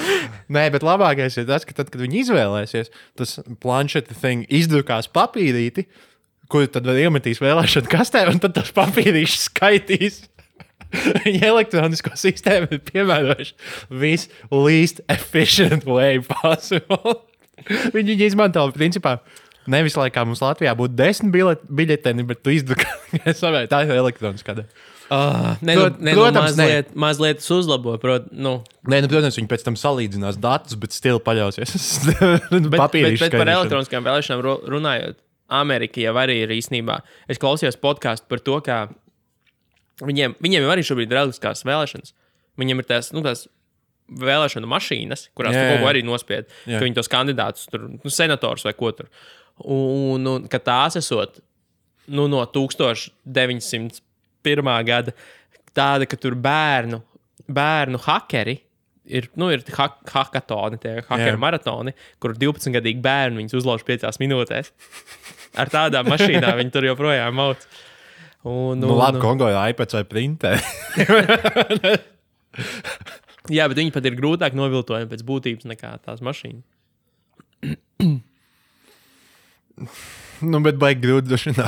Nē, bet labākais ir tas, ka tad, kad viņi izvēlēsies, tas planšeta thing izdrukās papīrīti, kuru tad var iemetīs vēlēšanu kastē, un tad tas papīrīšs skaitīs. Viņa elektronisko sistēmu ir piemērojuši viss least efficient way possible. Viņi izmanto principā nevis laikā mums Latvijā būtu 10 biļeteni, bet tu izdrukā. Tā ir elektroniskā. Protams, mazliet uzlabo. Nē, protams, viņi pēc tam salīdzinās datus, bet stili paļausies. Bet par elektroniskām vēlēšanām runājot, Amerika jau arī ir īstenībā. Es klausījos podkāstu par to, kā viņiem jau arī šobrīd ir elektriskās vēlēšanas. Viņiem ir tās vēlēšanu mašīnas, kurās tu kaut ko arī nospied, ka viņi tos kandidātus, senators vai ko tur. Un ka tās esot no 1901. Gada tāda, ka tur bērnu hakeri ir hakatoni, tie hakeru maratoni, kur 12-gadīgi bērni viņus uzlauž 5 minūtēs. Ar tādām mašīnām viņi tur joprojām mauc. Labi, Kongo ir iPads vai printē. Jā, bet viņi pat ir grūtāk noviltojami pēc būtības nekā tās mašīnas. Bet baigi grūti došanā.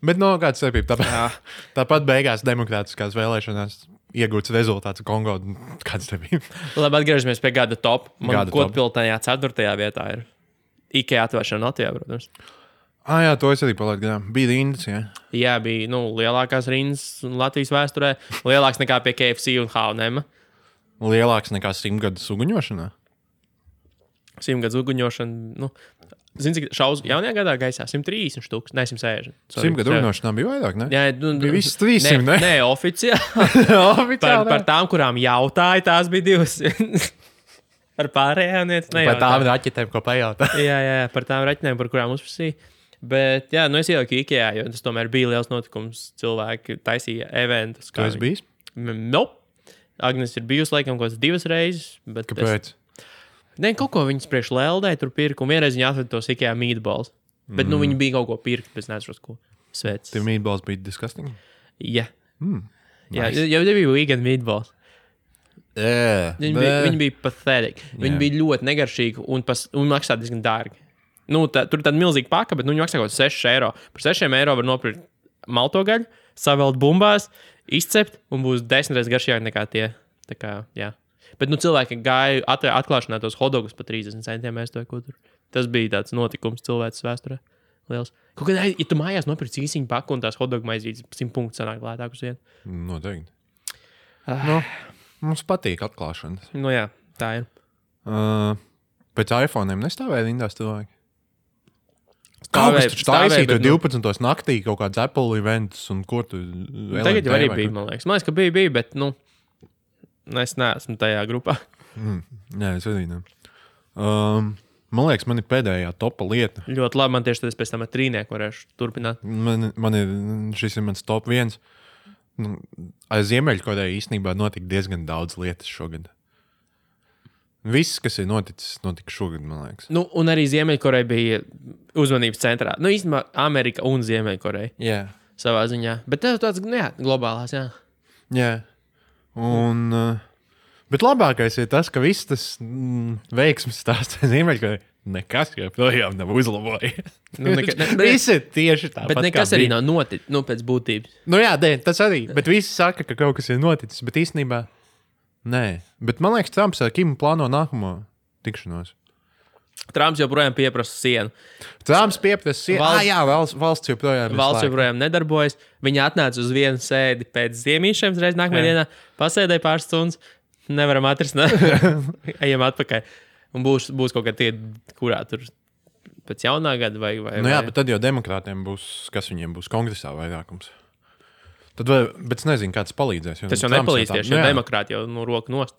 Bet kāds starpība? Tāpat beigās demokrātiskās vēlēšanās iegūts rezultāts Kongo. Kāds starpība? Labi, atgriežamies pie gada top. Man Kodpiltajā 4. vietā ir IKEA atvēršana Latvijā, protams. Jā, to es arī palaidu garām. Bija rindas, jā. Jā, bija lielākās rindas Latvijas vēsturē. Lielāks nekā pie KFC un H&M. Lielāks nekā 100 gadu uguņošanā? 100 gadu uguņošana, zini, cik šaus jaunajā gadā gaisā? 130 štuks, ne 160. 100 gadu uguņošanā bija vairāk, ne? Jā, bija viss 300, ne? Nē, oficiāli. Par tām, kurām jautāja, tās bija 200. Par pārējām nejautāja. Par tām raķetēm, ko pajautā. jā, par tām raķetēm, par kurām uzprasīja. Bet, jā, es ieliku IKEA, jo tas tomēr bija liels notikums. Cilvēki taisīja eventus. Tu esi bijis? Nope. Agnes ir bijusi laikam kaut kāds 2 reizes. Kāpēc? Nē, kaut ko viņas priekš Leldē tur pirka, un vienreiz viņa atveda tos IKEA meatballs. Bet, viņi bija kaut ko pirkt, bet es neatceros, ko. Svēc. Tie meatballs bija disgusting? Jā. Nice. Jā, jau bija vegan meatballs. Viņi bija pathetic. Viņi bija ļoti negaršīgi un maksā diezgan dārgi. Tur ir tāda milzīga paka, bet viņi maksā kaut 6 eiro. Par 6 eiro var nopirkt malto gaļu, savelt bumbās, izcept un būs 10 reizes garšīgāk nekā tie. Tā kā, jā. Bet cilvēki gāja atklāšanā tos hotdogus par 30 centiem. Tas bija tāds notikums cilvēces vēsturē. Liels. Kaut kādā, ja tu mājās nopirci īsiņu paku un tās hotdogu maizītes 100 punktus sanāk lētāk uz vienu. Noteikti. Mums patīk atklāšanas. Jā, tā ir. Pēc iPhone'iem nestāvēja rindās cilvēki? Kaut kas taču taisīja 12. naktī kaut kāds Apple events un ko tu... Tagad jau arī bija, man liekas. Man liekas, ka bija, bet, es neesmu tajā grupā. Nē, es arī ne. Man liekas, man ir pēdējā topa lieta. Ļoti labi, man tieši tad es pēc tam ar trīnieku varēšu turpināt. Šis ir mans top 1. Ar Ziemeļkoreju īstenībā notika diezgan daudz lietas šogad. Viss, kas ir notika šogad, man liekas. Un arī Ziemeļkoreja bija uzmanības centrā. Īstenībā Amerika un Ziemeļkoreja. Jā. Savā ziņā. Bet tev tāds, globālās, jā. Jā. Bet labākais ir tas, ka viss tas veiksmes stāsts Ziemeļkoreja nekas joprojām nav uzlabojies. Viss ir tieši tāpat. Bet nekas arī nav noticis, pēc būtības. Jā, tas arī. Bet visi saka, ka kaut kas ir noticis, bet īstenībā nē. Bet man liekas, Trumps ar Kimu plāno nākamo tikšanos. Trumps joprojām pieprasa sienu. Trumps pieprasa sienu. Valsts joprojām Valsts joprojām nedarbojas. Viņa atnāca uz vienu sēdi pēc ziemīšiem, reiz nākamajā dienā pasēdēja pāris stundas. Nevaram atrisināt. Ejam atpakaļ. Un būs kaut kā tie, kurā tur pēc jaunā gada vai... Jā, bet tad jau demokrātiem būs, kas viņiem būs kongresā vairākums. Tad, bet es nezinu, kāds palīdzēs. Tas jau nepalīdz tieši, jo demokrāti jau roku nost.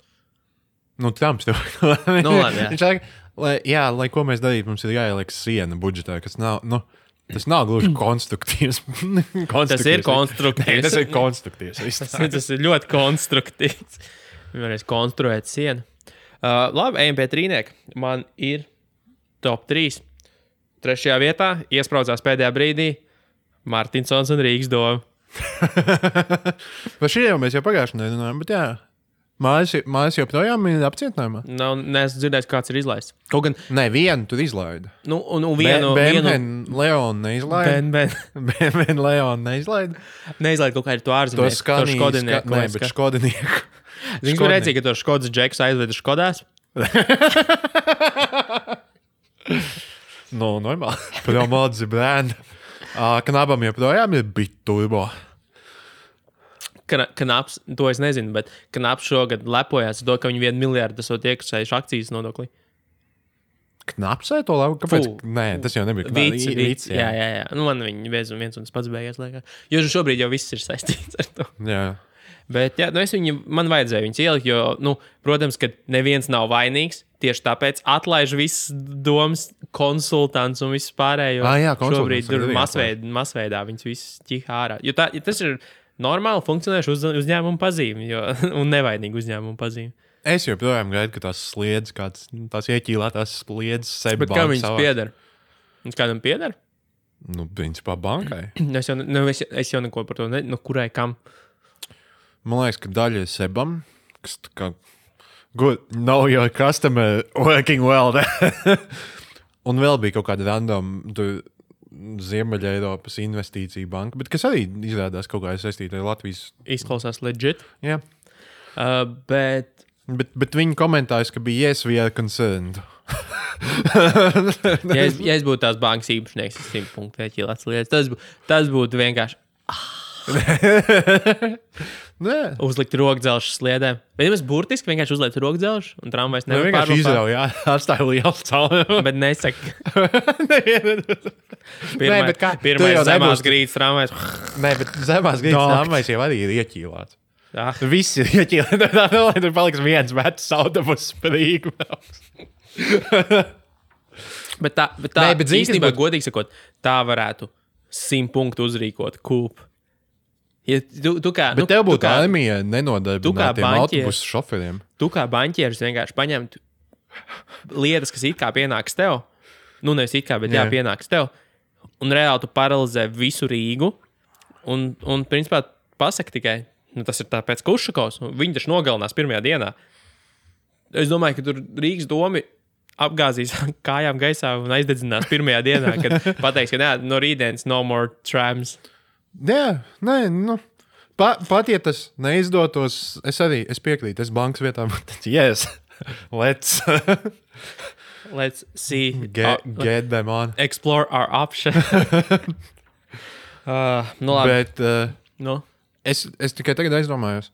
Trumps tev. Labi, viņš saka, lai ko mēs darītu, mums ir jāieliek siena budžetā, kas nav, tas nav gluži konstruktīvs. Tas ir konstruktīvs. Tas ir konstruktīvs. Tas ir ļoti konstruktīvs. Varēs konstruēt sienu. Labi, ejam pie trīnieka. Man ir top 3. 3. vietā iespraudzās pēdējā brīdī Martinsons un Rīgas doma. Par šī jau mēs jau pagājušajā nedēļā, bet jā. Mājas joprojām ir apcietinājumā? Neesmu dzirdējis, kāds ir izlaists. Kaut gan... Nē, vienu tur izlaida. Vienu... Leonu neizlaida. Ben Leonu neizlaida. Neizlaida kaut kā ir to ārzemnieku. To Škodinieku. Nē, bet Škodinieku. Zini, kur redzēja, ka to Škodas džekus aizveda Škodās? Normāli. Promodzi brand. Knabam joprojām ir biturbo. Knaps, to es nezinu, bet Knaps šogad lepojās to, ka viņi 1 miljardu esot iekasējuši akcijas nodoklī. Knapsē to labu? Kāpēc? Nē, tas jau nebija. Vīts, jā. Man viņi viens un tas pats beigās liekas. Jo šobrīd jau viss ir saistīts ar to. Jā. Bet jā, man vajadzēja viņus ielikt, jo, protams, ka neviens nav vainīgs. Tieši tāpēc atlaiž visas domas konsultants un viss pārējo. Jā, šobrīd tur masveidā viņus visus ķihā ārā. Jo tas ir normāli funkcionējuši uzņēmumu pazīmi un nevainīgi uzņēmumu pazīmi. Es joprojām gaidu, ka tās sliedzes, tās ieķīlētās sliedzes sevi banka. Bet kā viņas pieder? Viņas kādam pieder? Principā bankai. Es jau neko par to kurai kam. Man liekas, ka daļa ir sebam, kas tā kā good, know your customer working well. Un vēl bija kaut kāda random Ziemeļa Eiropas investīcija banka, bet kas arī izrādās kaut kā saistīta ar Latvijas. Izklausās legit. Jā. Bet viņi komentējas, ka bija yes, we are concerned. ja es būtu tās bankas īpašnieks, es 100 punktu ieķīlēts lietas, tas būtu vienkārši uzlikt rokdzelžu sliedēm. Bet ja mēs burtiski vienkārši uzlikt rokdzelžu un tramvajs nevar pārvākt. Vienkārši izrauj, jā, atstāja liels cauri. Bet nesaka. Pirmais zemās grīdas tramvajs. Nē, bet zemās grīdas tramvajs jau arī ir ieķīlēts. Jā. Viss ir ieķīlēts. Tur paliks viens vecs autobus sprīgi. Bet tā īstenībā, godīgi sakot, tā varētu 100 punktu uzrīkot kūpu. Ja bet tev būtu armija nenodarbinātiem autobusu šoferiem. Tu kā baņķieris vienkārši paņemtu lietas, kas it kā pienāks tev. Nevis it kā, bet jā, pienāks tev. Un reāli tu paralizē visu Rīgu. Un principā pasaka tikai, tas ir tāpēc Kušakovs. Viņi taču nogalinās pirmajā dienā. Es domāju, ka tur Rīgas domi apgāzīs kājām gaisā un aizdedzinās pirmajā dienā, kad pateiks, ka no rītdienas no more trams. Jā, pat ja tas neizdotos, es piekrītu, es bankas vietā būtu teicis, yes, let's see. Get them on. Explore our option. Labi. Bet es tikai tagad aizdomājos.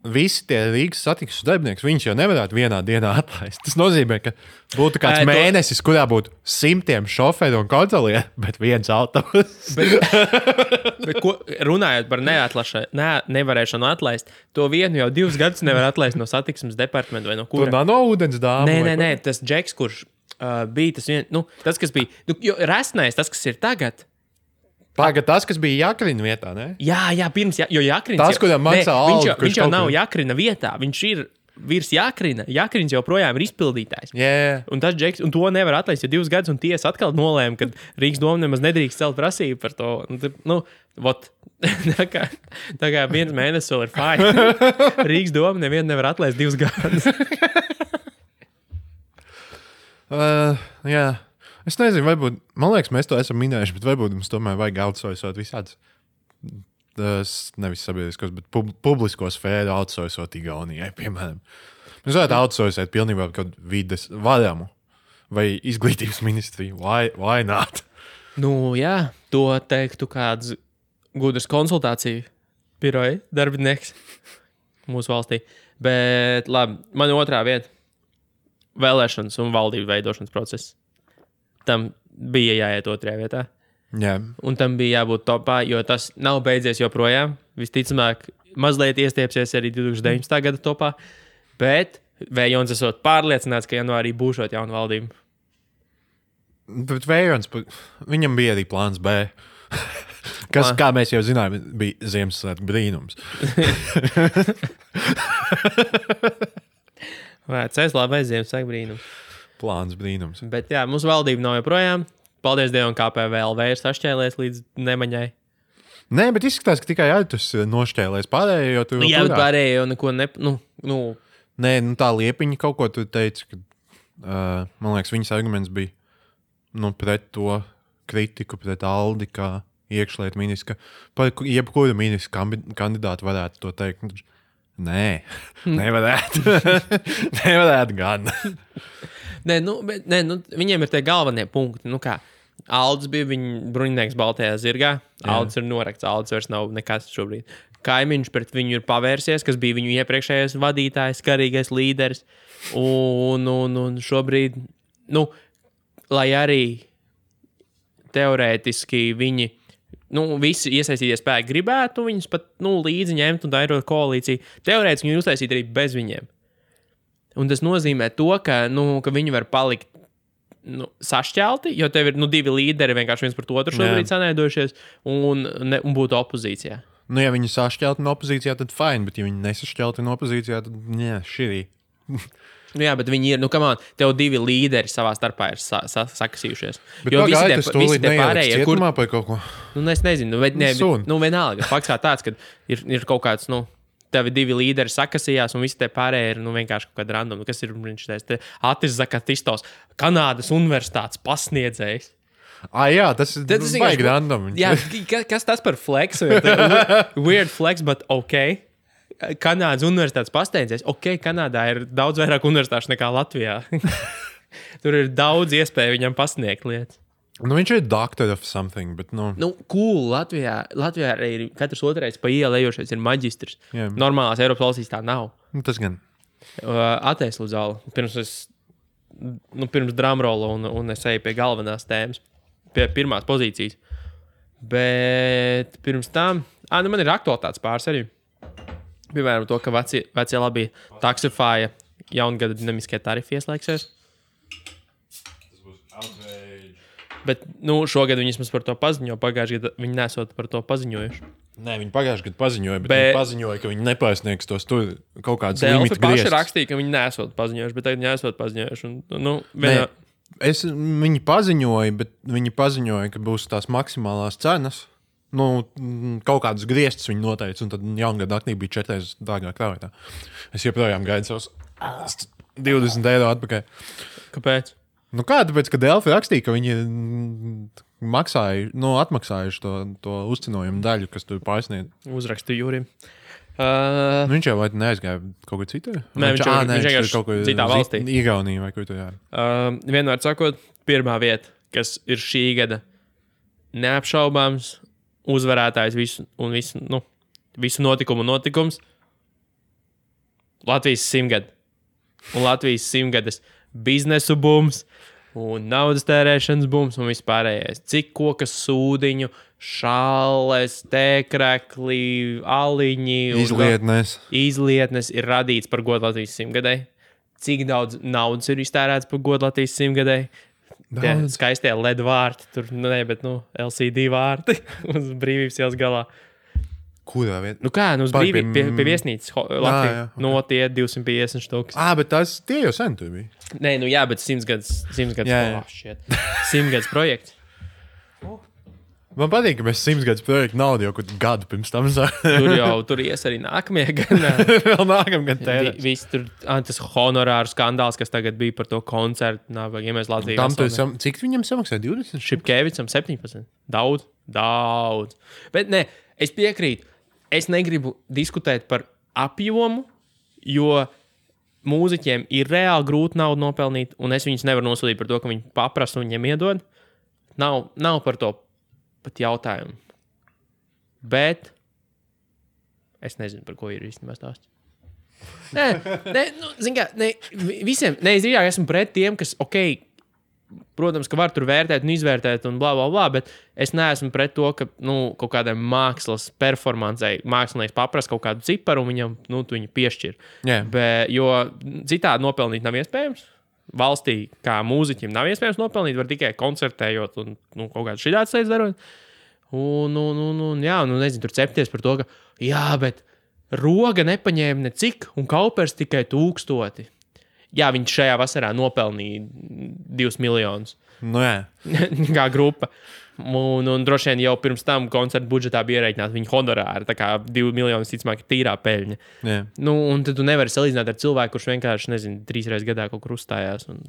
Visi tie Rīgas satiksmes darbinieki, viņš jau nevarētu vienā dienā atlaist. Tas nozīmē, ka būtu kāds mēnesis, kurā būtu 100 šoferu un kontrolieru, bet viens autobus. Bet runājot par nevarēšanu atlaist, to vienu jau 2 gadus nevar atlaist no satiksmes departamenta vai no kura. Tur nav no ūdens dāma. Nē, tas džeks, kurš bija tas viens, tas, kas bija, jo resnais, tas, kas ir tagad. Pagad, tas, kas bija Jakrina vietā, ne? Jā, pirms, jo Jakrins... Tas, kuram maksā algu, viņš jau nav Jakrina vietā, viņš ir virs Jakrina. Jakrins joprojām ir izpildītājs. Yeah. Un tas džeks, un to nevar atlaist jau 2 gadus, un tiesa atkal nolēma, ka Rīgas doma nemaz nedrīkst celt prasību par to. Tā kā 1 mēnesis vēl ir fine. Rīgas doma nevienu nevar atlaist 2 gadus. Jā. Es nezinu, varbūt, man liekas, mēs to esam minējuši, bet varbūt mums tomēr vajag outsourcot visādas, nevis sabiedriskos, bet publisko sfēru outsourcot Igaunijai, piemēram. Mēs varētu outsourcot pilnībā kaut vides varamu vai izglītības ministriju. Why not? Jā, to teiktu kāds gudrs konsultāciju biroja darbinieks mūsu valstī. Bet labi, man otrā vieta. vēlēšanas un valdību veidošanas process. Tam bija jāiet otrajā vietā. Jā. Un tam bija jābūt topā, jo tas nav beidzies joprojām. Visticamāk, mazliet iestiepsies arī 2019. Gada topā. Bet Vējons esot pārliecināts, ka janvārī būšot jauna valdība. Bet Vējons, viņam bija arī plāns B. Kas, kā mēs jau zinām, bija Ziemassvētku brīnums. Vecais labais Ziemassvētku brīnums. Plāns brīnums. Bet jā, mūsu valdība nav joprojām. Paldies Dievam, kā PVLV ir sašķēlies līdz nemaņai. Nē, bet izskatās, ka tikai Aitus nošķēlēs pārējo, jo tu Jā, bet pārējo neko Nē, tā Liepiņa kaut ko tu teici, ka, man liekas, viņas arguments bija pret to kritiku, pret Aldi, kā iekšlietu ministru, par jebkuru ministru kandidātu varētu to teikt. Nē, nevarētu. Nevarētu gan. Nē, viņiem ir tie galvenie punkti. Aldis bija viņa bruņinieks Baltajā zirgā. Aldis ir norakts, Aldis vairs nav nekas šobrīd. Kaimiņš pret viņu ir pavērsies, kas bija viņu iepriekšējais vadītājs, karīgais līderis. Un šobrīd, lai arī teorētiski viņi, visi iesaistītie spēki gribētu viņus pat līdzi ņemt un dairot koalīciju, teorētiski viņi uztaisīt arī bez viņiem. Un tas nozīmē to, ka viņi var palikt sašķelti, jo tev ir 2 līderi vienkārši viens par otru šobrīd sanaidojušies un būtu opozīcijā. Ja viņi sašķelti no opozīcijā, tad fine, bet ja viņi nesašķelti no opozīcijā, tad širī. Jā, bet viņi ir, tev 2 līderi savā starpā ir sakasījušies. Bet jo visi tie pārējie, cietumā par kaut ko? Es nezinu, vienalga. Fakts kā tāds, ka ir kaut kāds, tevi 2 līderi sakasījās, un visi tie pārējie ir vienkārši kaut kāda random. Kas ir viņš teiks? Atis Zakatistos, Kanādas universitātes pasniedzējs. Jā, tas ir baigi random. Jā, kas tas par flex? Weird flex, but ok. Kanādas universitātes pasniedzējs. Ok, Kanādā ir daudz vairāk universitāšu nekā Latvijā. Tur ir daudz iespēju viņam pasniegt lietas. Viņš ir doctor of something, bet cool, Latvijā arī ir katrs otrais pa ielu ejošais ir maģistrs. Yeah. Normālās Eiropas valstīs tā nav. Tas gan. Ateic lūdzu zāli. Pirms drumrolla un es eju pie galvenās tēmas, pie pirmās pozīcijas. Bet pirms tam, man ir aktualitātes pāris arī. Piemēram, to, ka vecie labi Taxify jaungada dinamiskie tarifi ieslēgsies. Tas būs outrage. Bet šogad viņi vismaz par to paziņoja. Pagājušajā gadā viņi nesot par to paziņojuši. Nē, viņi pagājušajā gadā paziņoja, bet viņi paziņoja, ka viņi nepārsniegs tos tur kaut kādas limitu griestus. Paši rakstīja, ka viņi nesot paziņojuši, bet tagad viņi nesot paziņojuši. Viņi paziņoja, bet viņi paziņoja, ka būs tās maksimālās cenas. Kaut kādus griestus viņi noteica, un tad jaungada naktī bija 4 reizes dārgāk krāvētā. Es joprojām gaidu savus 20 eiro atpakaļ. Kāpēc? Tāpēc, ka Delfi rakstīja, ka viņi atmaksājuši to uzcinojumu daļu, kas tur pārsniedz. Uzrakstīju Jūrim. Viņš jau neaizgāja kaut kur citur? Nē, viņš vienkārši kaut kur citā valstī. Igaunijā vai kur tur jā. Vienmēr sakot, pirmā vieta, kas ir šī gada neapšaubāms uzvarētājs visu notikumu notikums Latvijas 100-gada. Un Latvijas 100-gadas biznesu bums un naudas tērēšanas bums un vispārējais. Cik kokas sūdiņu, šāles, tēkrekli, aliņi. Izlietnes ir radīts par godu Latvijas 100-gadai. Cik daudz naudas ir iztērēts par godu Latvijas 100-gadai. Tie skaistie LED vārti, tur LCD vārti uz Brīvības ielas galā. Kurā vietā? Uz Brīvības pie viesnīcas Latvijā. Tie 250 štukas. Bet tie jau sen tur bija. Nē, bet 100 gads 100 gads projekts. Man patīk, ka mēs 100 gadus projektu naudu jau gadu pirms tam tur ies arī nākamie gan. Vēl nākamie gan tērēs. Viss tur, tas honorāru skandāls, kas tagad bija par to koncertu. Ja mēs Latvijā cik viņam samaksāja? 20? Šipkevicam 17. Daudz. Bet ne, es piekrītu. Es negribu diskutēt par apjomu, jo mūziķiem ir reāli grūti naudu nopelnīt, un es viņus nevaru nosodīt par to, ka viņi paprasa un viņiem iedod. Nav par to pat jautājumu. Bet es nezinu, par ko ir īstenībā stāsts. Nē, nu, zin kā, visiem, es drīzāk esmu pret tiem, kas, protams, ka var tur vērtēt un izvērtēt un blā, blā, blā, bet es neesmu pret to, ka, kaut kādai mākslas performancei mākslinieks paprasa kaut kādu ciparu un viņam, tu viņu piešķir. Jo citādi nopelnīt nav iespējams. Valstī, kā mūziķim, nav iespējams nopelnīt, var tikai koncertējot un kaut kādu šitās lietas darot. Nezinu, tur cepties par to, ka, bet Roga nepaņēma necik, un Kaupers tikai 1000. Jā, viņš šajā vasarā nopelnīja 2 miljonus. Kā grupa. Un droši vien jau pirms tam koncertu budžetā bija ierēķināta viņa honorāri. Tā kā 2 miljonus, ticamāk, ir tīrā peļņa. Un tad tu nevari salīdzināt ar cilvēku, kurš vienkārši, 3 reizes gadā kaut kur uzstājās un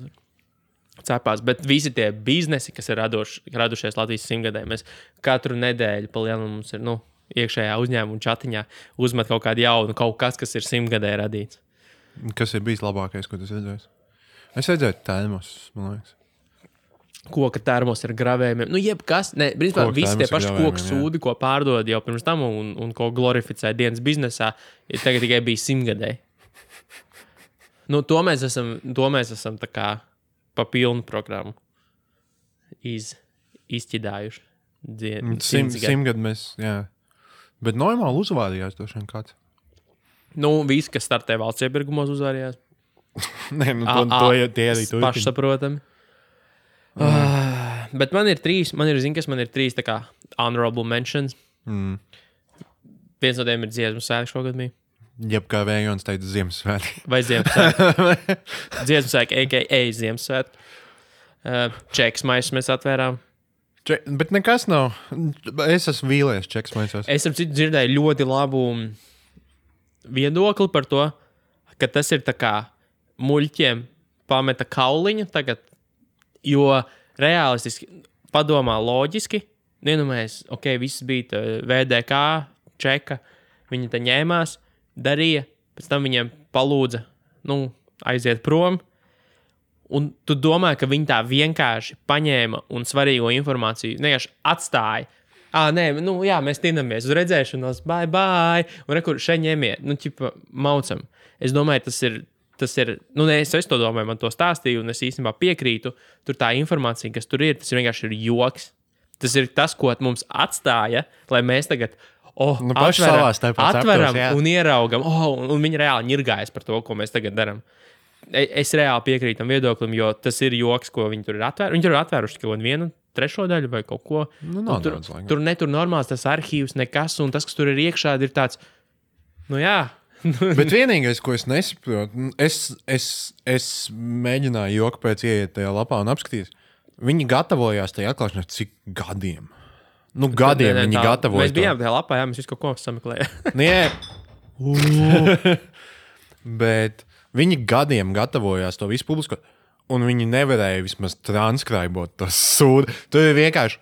cepās. Bet visi tie biznesi, kas ir radušies Latvijas 100-gadē, mēs katru nedēļu pa lielu mums ir, iekšējā uzņēmuma čatiņā uzmet kaut kādu jaunu, kaut kas ir 100-gadē radīts. Kas ir bijis labākais, ko tu redzēji? Es redzēju termos, man liekas. Koka termos ar gravējumiem. Jebkas. Principā visi tie paši koku sūdi, ko pārdod jau pirms tam un ko glorificē dienas biznesā, tagad tikai bija 100-gadē. To mēs esam tā kā pa pilnu programmu izķidājuši. 100 gadu mēs, jā. Bet normāli uzvārījās došana kāds. Visi, kas startē valsts iepirkumos, uzvārījās. Nē, to jau tie arī turpina. Pašsaprotami. Bet man ir 3 tā kā honorable mentions. Viens no tiem ir Dziesmu svētki šogad bija. Jeb kā Vējons teica Ziemassvētki. Vai Ziemassvētki. Dziesmu svētki, a.k.a. Ziemassvētki. Čeks maisus mēs atvērām. Bet nekas nav. Es esmu vīlies čeks maisos. Es dzirdēju ļoti labu viedokli par to, ka tas ir tā kā muļķiem pameta kauliņu tagad, jo realistiski padomā loģiski, mēs, viss bija VDK, čeka, viņi te ņēmās, darīja, pēc tam viņiem palūdza, aiziet prom, un tu domā, ka viņi tā vienkārši paņēma un svarīgo informāciju vienkārši atstāja. Mēs tinamies uz redzēšanos, bye, un rekur šeit ņemiet, maucam. Es domāju, tas ir, es to domāju, man to stāstīju, un es īstenībā piekrītu, tur tā informācija, kas tur ir, tas vienkārši ir joks. Tas ir tas, ko mums atstāja, lai mēs tagad atveram un ieraugam, un viņi reāli ņirgājas par to, ko mēs tagad darām. Es reāli piekrītu tam viedoklim, jo tas ir joks, ko viņi tur ir atvēruši. Viņi tur ir atvēruši kaut vienu trešo daļu vai kaut ko. Tur netur normāls tas arhīvs, nekas, un tas, kas tur ir iekšā, ir tāds, Bet vienīgais, ko es nesaprotu, es mēģināju joku pēc ieiet tajā lapā un apskatīt. Viņi gatavojās tajā atklāšanā cik gadiem? Gadiem viņi gatavojas. Mēs bijām tajā lapā, mēs visu kaut ko sameklējām. Bet viņi gadiem gatavojās to visu publiskot, un viņi nevarēja vismaz transkribot to sūdu. Tur ir vienkārši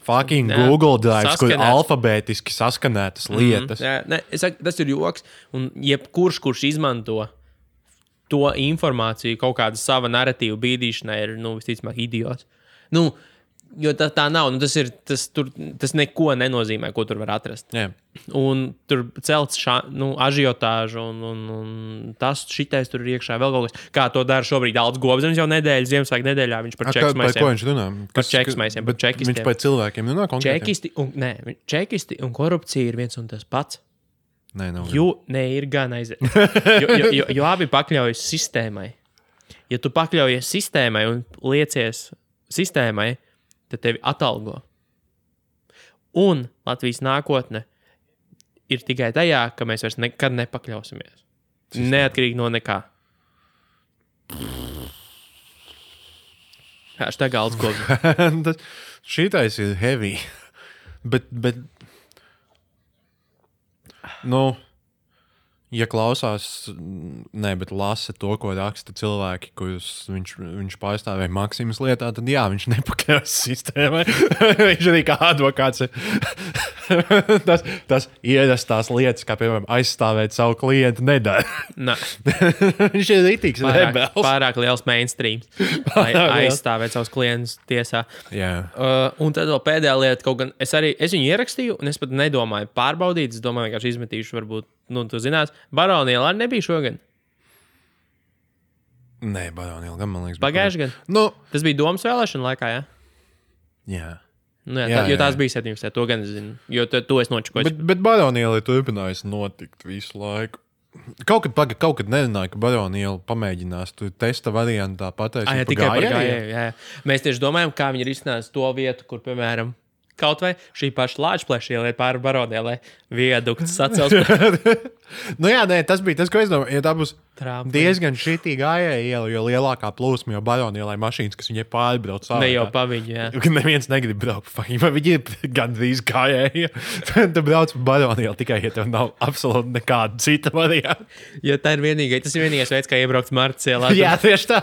fucking Google Drive, kur alfabētiski saskanētas lietas. Es saku, tas ir joks, un kurš izmanto to informāciju kaut kāda sava narratīva bīdīšanai ir, visticamāk, idiots. Jo tā nav, tas neko nenozīmē, ko tur var atrast. Un tur celts ažiotāžu, un tas šitais tur ir iekšā vēl kaut kas. Kā to dara šobrīd Alts Gobzems jau Ziemassvētku nedēļā, viņš par čeksmaisiem. Par ko viņš runā? Par čeksmaisiem, par čekistiem. Viņš par cilvēkiem runā konkrēti? Čekisti un korupcija ir viens un tas pats. Nē, ir gan aiziet. Jo abi pakļaujas sistēmai. Ja tu pakļaujies sistēmai un liecies sistēmai, tad tevi atalgo. Un Latvijas nākotne ir tikai tajā, ka mēs vairs nekad nepakļausimies. Neatkarīgi no nekā. Hashtag Alts Gobzems. Šitais ir heavy. Bet ja klausās, bet lasa to, ko raksta cilvēki, kurus viņš pārstāvēja Maksimas lietā, tad jā, viņš nepakļaujas sistēmai. Viņš arī kā advokāts ir. tas ierastās lietas, kā piemēram aizstāvēt savu klientu, nedara. Viņš ir rītīgs rebels. Pārāk liels mainstream, lai aizstāvētu savus klientus tiesā. Un tad vēl pēdējā lieta, kaut gan es viņu ierakstīju, un es pat nedomāju pārbaudīt, es domāju, vienkārši izmetīšu, varbūt, tu zinās, Baroniela arī nebija šogad. Nē, Baroniela gan, man liekas. Pagājuši gan? Tas bija domas vēlēšana laikā, jā? Jā. Jo tās bija 17. To gan es zinu, jo to es nočakoju. Bet Baroniela ir turpinājusi notikt visu laiku. Kaut kad nerunāju, ka Baroniela pamēģinās tu testa variantā pateikt tikai par gājēju. Mēs tieši domājam, kā viņi risinās to vietu, kur, piemēram, kaut vai šī paša Lāčplēša ieliet pāri Baronielai viedukts sacels. Tas bija tas, ko es domāju. Ja tā būs diezgan šitī gājēja iela, jo lielākā plūsma jau Baronielai mašīnas, kas viņai pārbrauc sāvā. Ne jau pa viņu, jā. Neviens negrib braukt pa viņu, viņi ir gandrīz gājēja. Tu brauc pa Baronielu tikai, ja tev nav absolūti nekāda cita varianta. Jo tas ir vienīgais veids, kā iebraukt Martas ielā. Jā, tieši tā.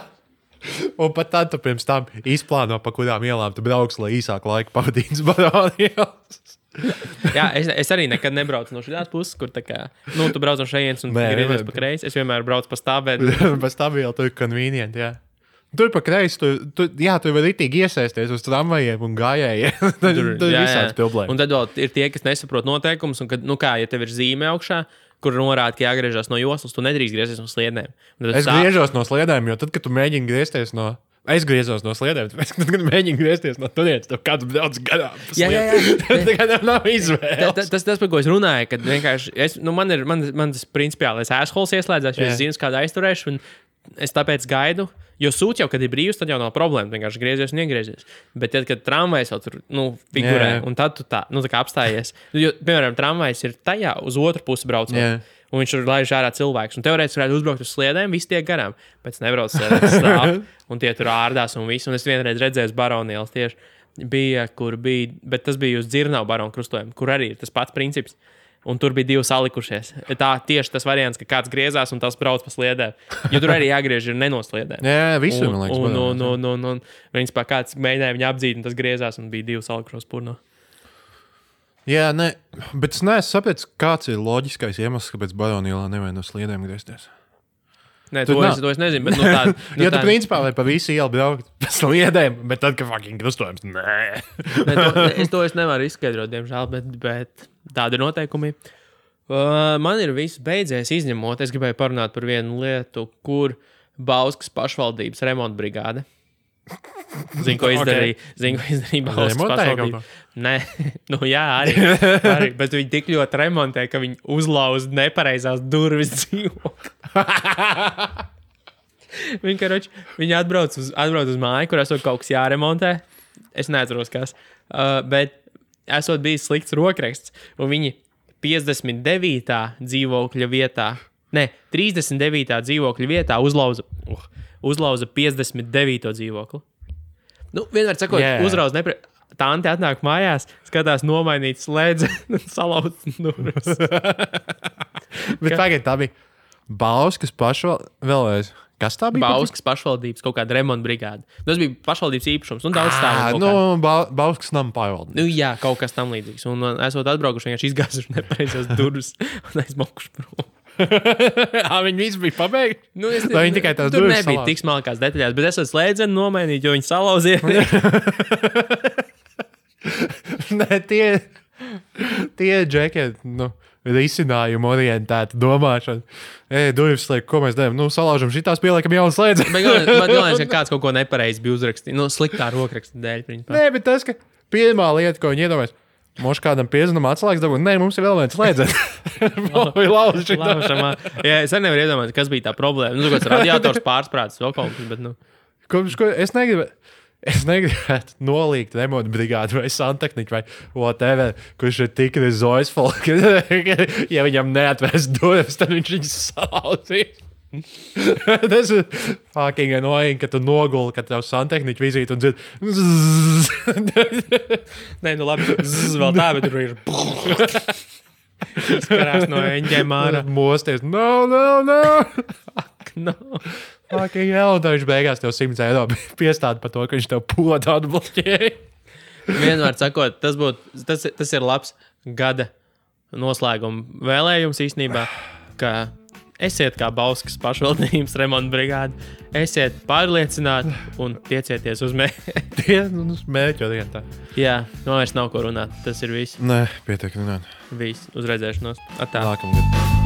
Un pat tad tu pirms tam izplāno, pa kurām ielām tu brauks, lai īsāku laiku pavadītu Baronielas. Jā, es arī nekad nebraucu no šīs puses, kur tā kā, tu brauc no šejienes un griezies pa kreisi. Es vienmēr braucu pa stāvēt. Pa stāvēt, tur ir convenient, jā. Tur pa kreisi, tu var ritīgi iesaisties uz tramvajiem un gājējiem. Tur ir visāds problēmas. Un tad vēl ir tie, kas nesaprot noteikumus, un kad, ja tev ir zīme augšā, kur norāda, ka jāgriežas no joslas, tu nedrīkst griezties no sliedēm. Es griežos no sliedēm, jo tad, kad tu mēģini griezties no... Es griezos no sliedēm, tad, kad mēģinu griezties no turienes, tev kāds brauc garām. Jā. Tad nav izvēles. Tas, par ko es runāju, kad vienkārši... man tas principiālais assholes ieslēdzās, jo es zinu, kādu aizturēšu, un es tāpēc gaidu. Jo sūds jau, kad ir brīvs, tad jau nav problēma. Vienkārši griezies un iegriezies. Bet tad, kad tramvajs jau tur figurē, un tad tu tā kā apstājies. Jo, piemēram, tramvajs ir tajā uz otru pusi braucot. Un viņš tur laiž ārā cilvēks. Un teorētiski varētu uzbraukt uz sliedēm, visi tiek garām. Pēc nebrauc sliedēs stāv. Un tie tur ārdās un viss. Un es vienreiz redzēju Baronielas tieši. Bet tas bija uz Dzirnavu baronu krustojumu, kur arī ir tas pats princips. Un tur bija divi salikušies. Tā tieši tas variants, ka kāds griezās un tas brauc pa sliedēm. Jo tur arī jāgriež ir nenosliedēm. Jā, visur, man liekas. Un viņas pā kāds mēģināja viņu apdzīt, un tas griezās, un bija divi salikušos purno. Jā, bet es neesmu sapratis, kāds ir loģiskais iemesls, kāpēc Baronielā nevajag no sliedēm griezties. Nē, to es nezinu, bet tāda... Jo tu principā vai pa visu ielu braukt pa sliedēm, bet tad, ka fucking krustojums, nē. Es nevaru izskaidrot, diemžēl, bet tādi ir noteikumi. Man ir viss beidzies izņemot. Es gribēju parunāt par vienu lietu, kur Bauskas pašvaldības remonta brigāde. Zinu, ko izdarīja. Zinu, ko izdarīja Bauskas pašvaldība. Nē, jā, arī. Bet viņi tik ļoti remontē, ka viņi uzlauz nepareizās durvis dzīvokli. Viņi atbrauc uz māju, kur esot kaut kas jāremontē. Es neatceros, kas. Bet esot bijis slikts rokraksts, un viņi 59. dzīvokļa vietā, 39. dzīvokļa vietā uzlauza 59. dzīvokli. Vienmēr sakot, uzrauz Tante atnāk mājās, skatās nomainīt slēdzeni un salauzt durvis. Bet pagaid, tā bija Bauskas vēlreiz. Kas tā bija? Bauskas pašvaldības kaut kāda remonta brigāde. Tas bija pašvaldības īpašums un daudz stāvu. Bauskas nama pārvaldības. Jā, kaut kas tam līdzīgs. Un esot atbraukuši, vienkārši izgāzuši nepareizās durvis un aizmokuši prom. Viņi visi bija pabeigti? Vai viņi tikai tās durvis salauzt? Tur nebija tik smalkās detaļās, bet esot slēdzeni nomainīt, jo viņi salauzīja. Tie džeki, risinājumu orientēta domāšana. Durvis slēgt, ko mēs darām? Salaužam šitās, pieliekam jaunu slēdzeni. Man liekas, ka kāds kaut ko nepareizi bija uzrakstījis. Sliktā rokraksta dēļ. Nē, bet tas, ka pirmā lieta, ko viņi iedomājas, mums kādam piezinam atslēgas dabūt, nē, mums ir vēl viens slēdzeni. Jā, es arī nevaru iedomāt, kas bija tā problēma. Kāds radiators pārsprāts, vēl kaut kas, bet Es negribētu nolīgt remonta brigādi vai santehniku vai whatever, kurš ir tik rezoisful, ka ja viņam neatvērs durvis, tad viņš viņus salauzīs. Tas ir fucking annoying, ka tu noguli, ka tev santehniku vizīti un dzird. Nē, labi, vēl tā, bet tur ir. Skarās no eņģiem ārā. Mosties. No. Fuck, no. Fucking hell, un viņš beigās tev 100 eiro piestāda par to, ka viņš tev podu atbloķēja. Vienmēr sakot, tas ir labs gada noslēguma vēlējums īstenībā, ka esiet kā Bauskas pašvaldības remonta brigāde, esiet pārliecināti un tiecieties uz mērķi. Uz mērķi jau tā. Jā, vairs nav ko runāt. Tas ir viss. Nē, pietiek runāt. Viss, uz redzēšanos. Atā. Nākamgad.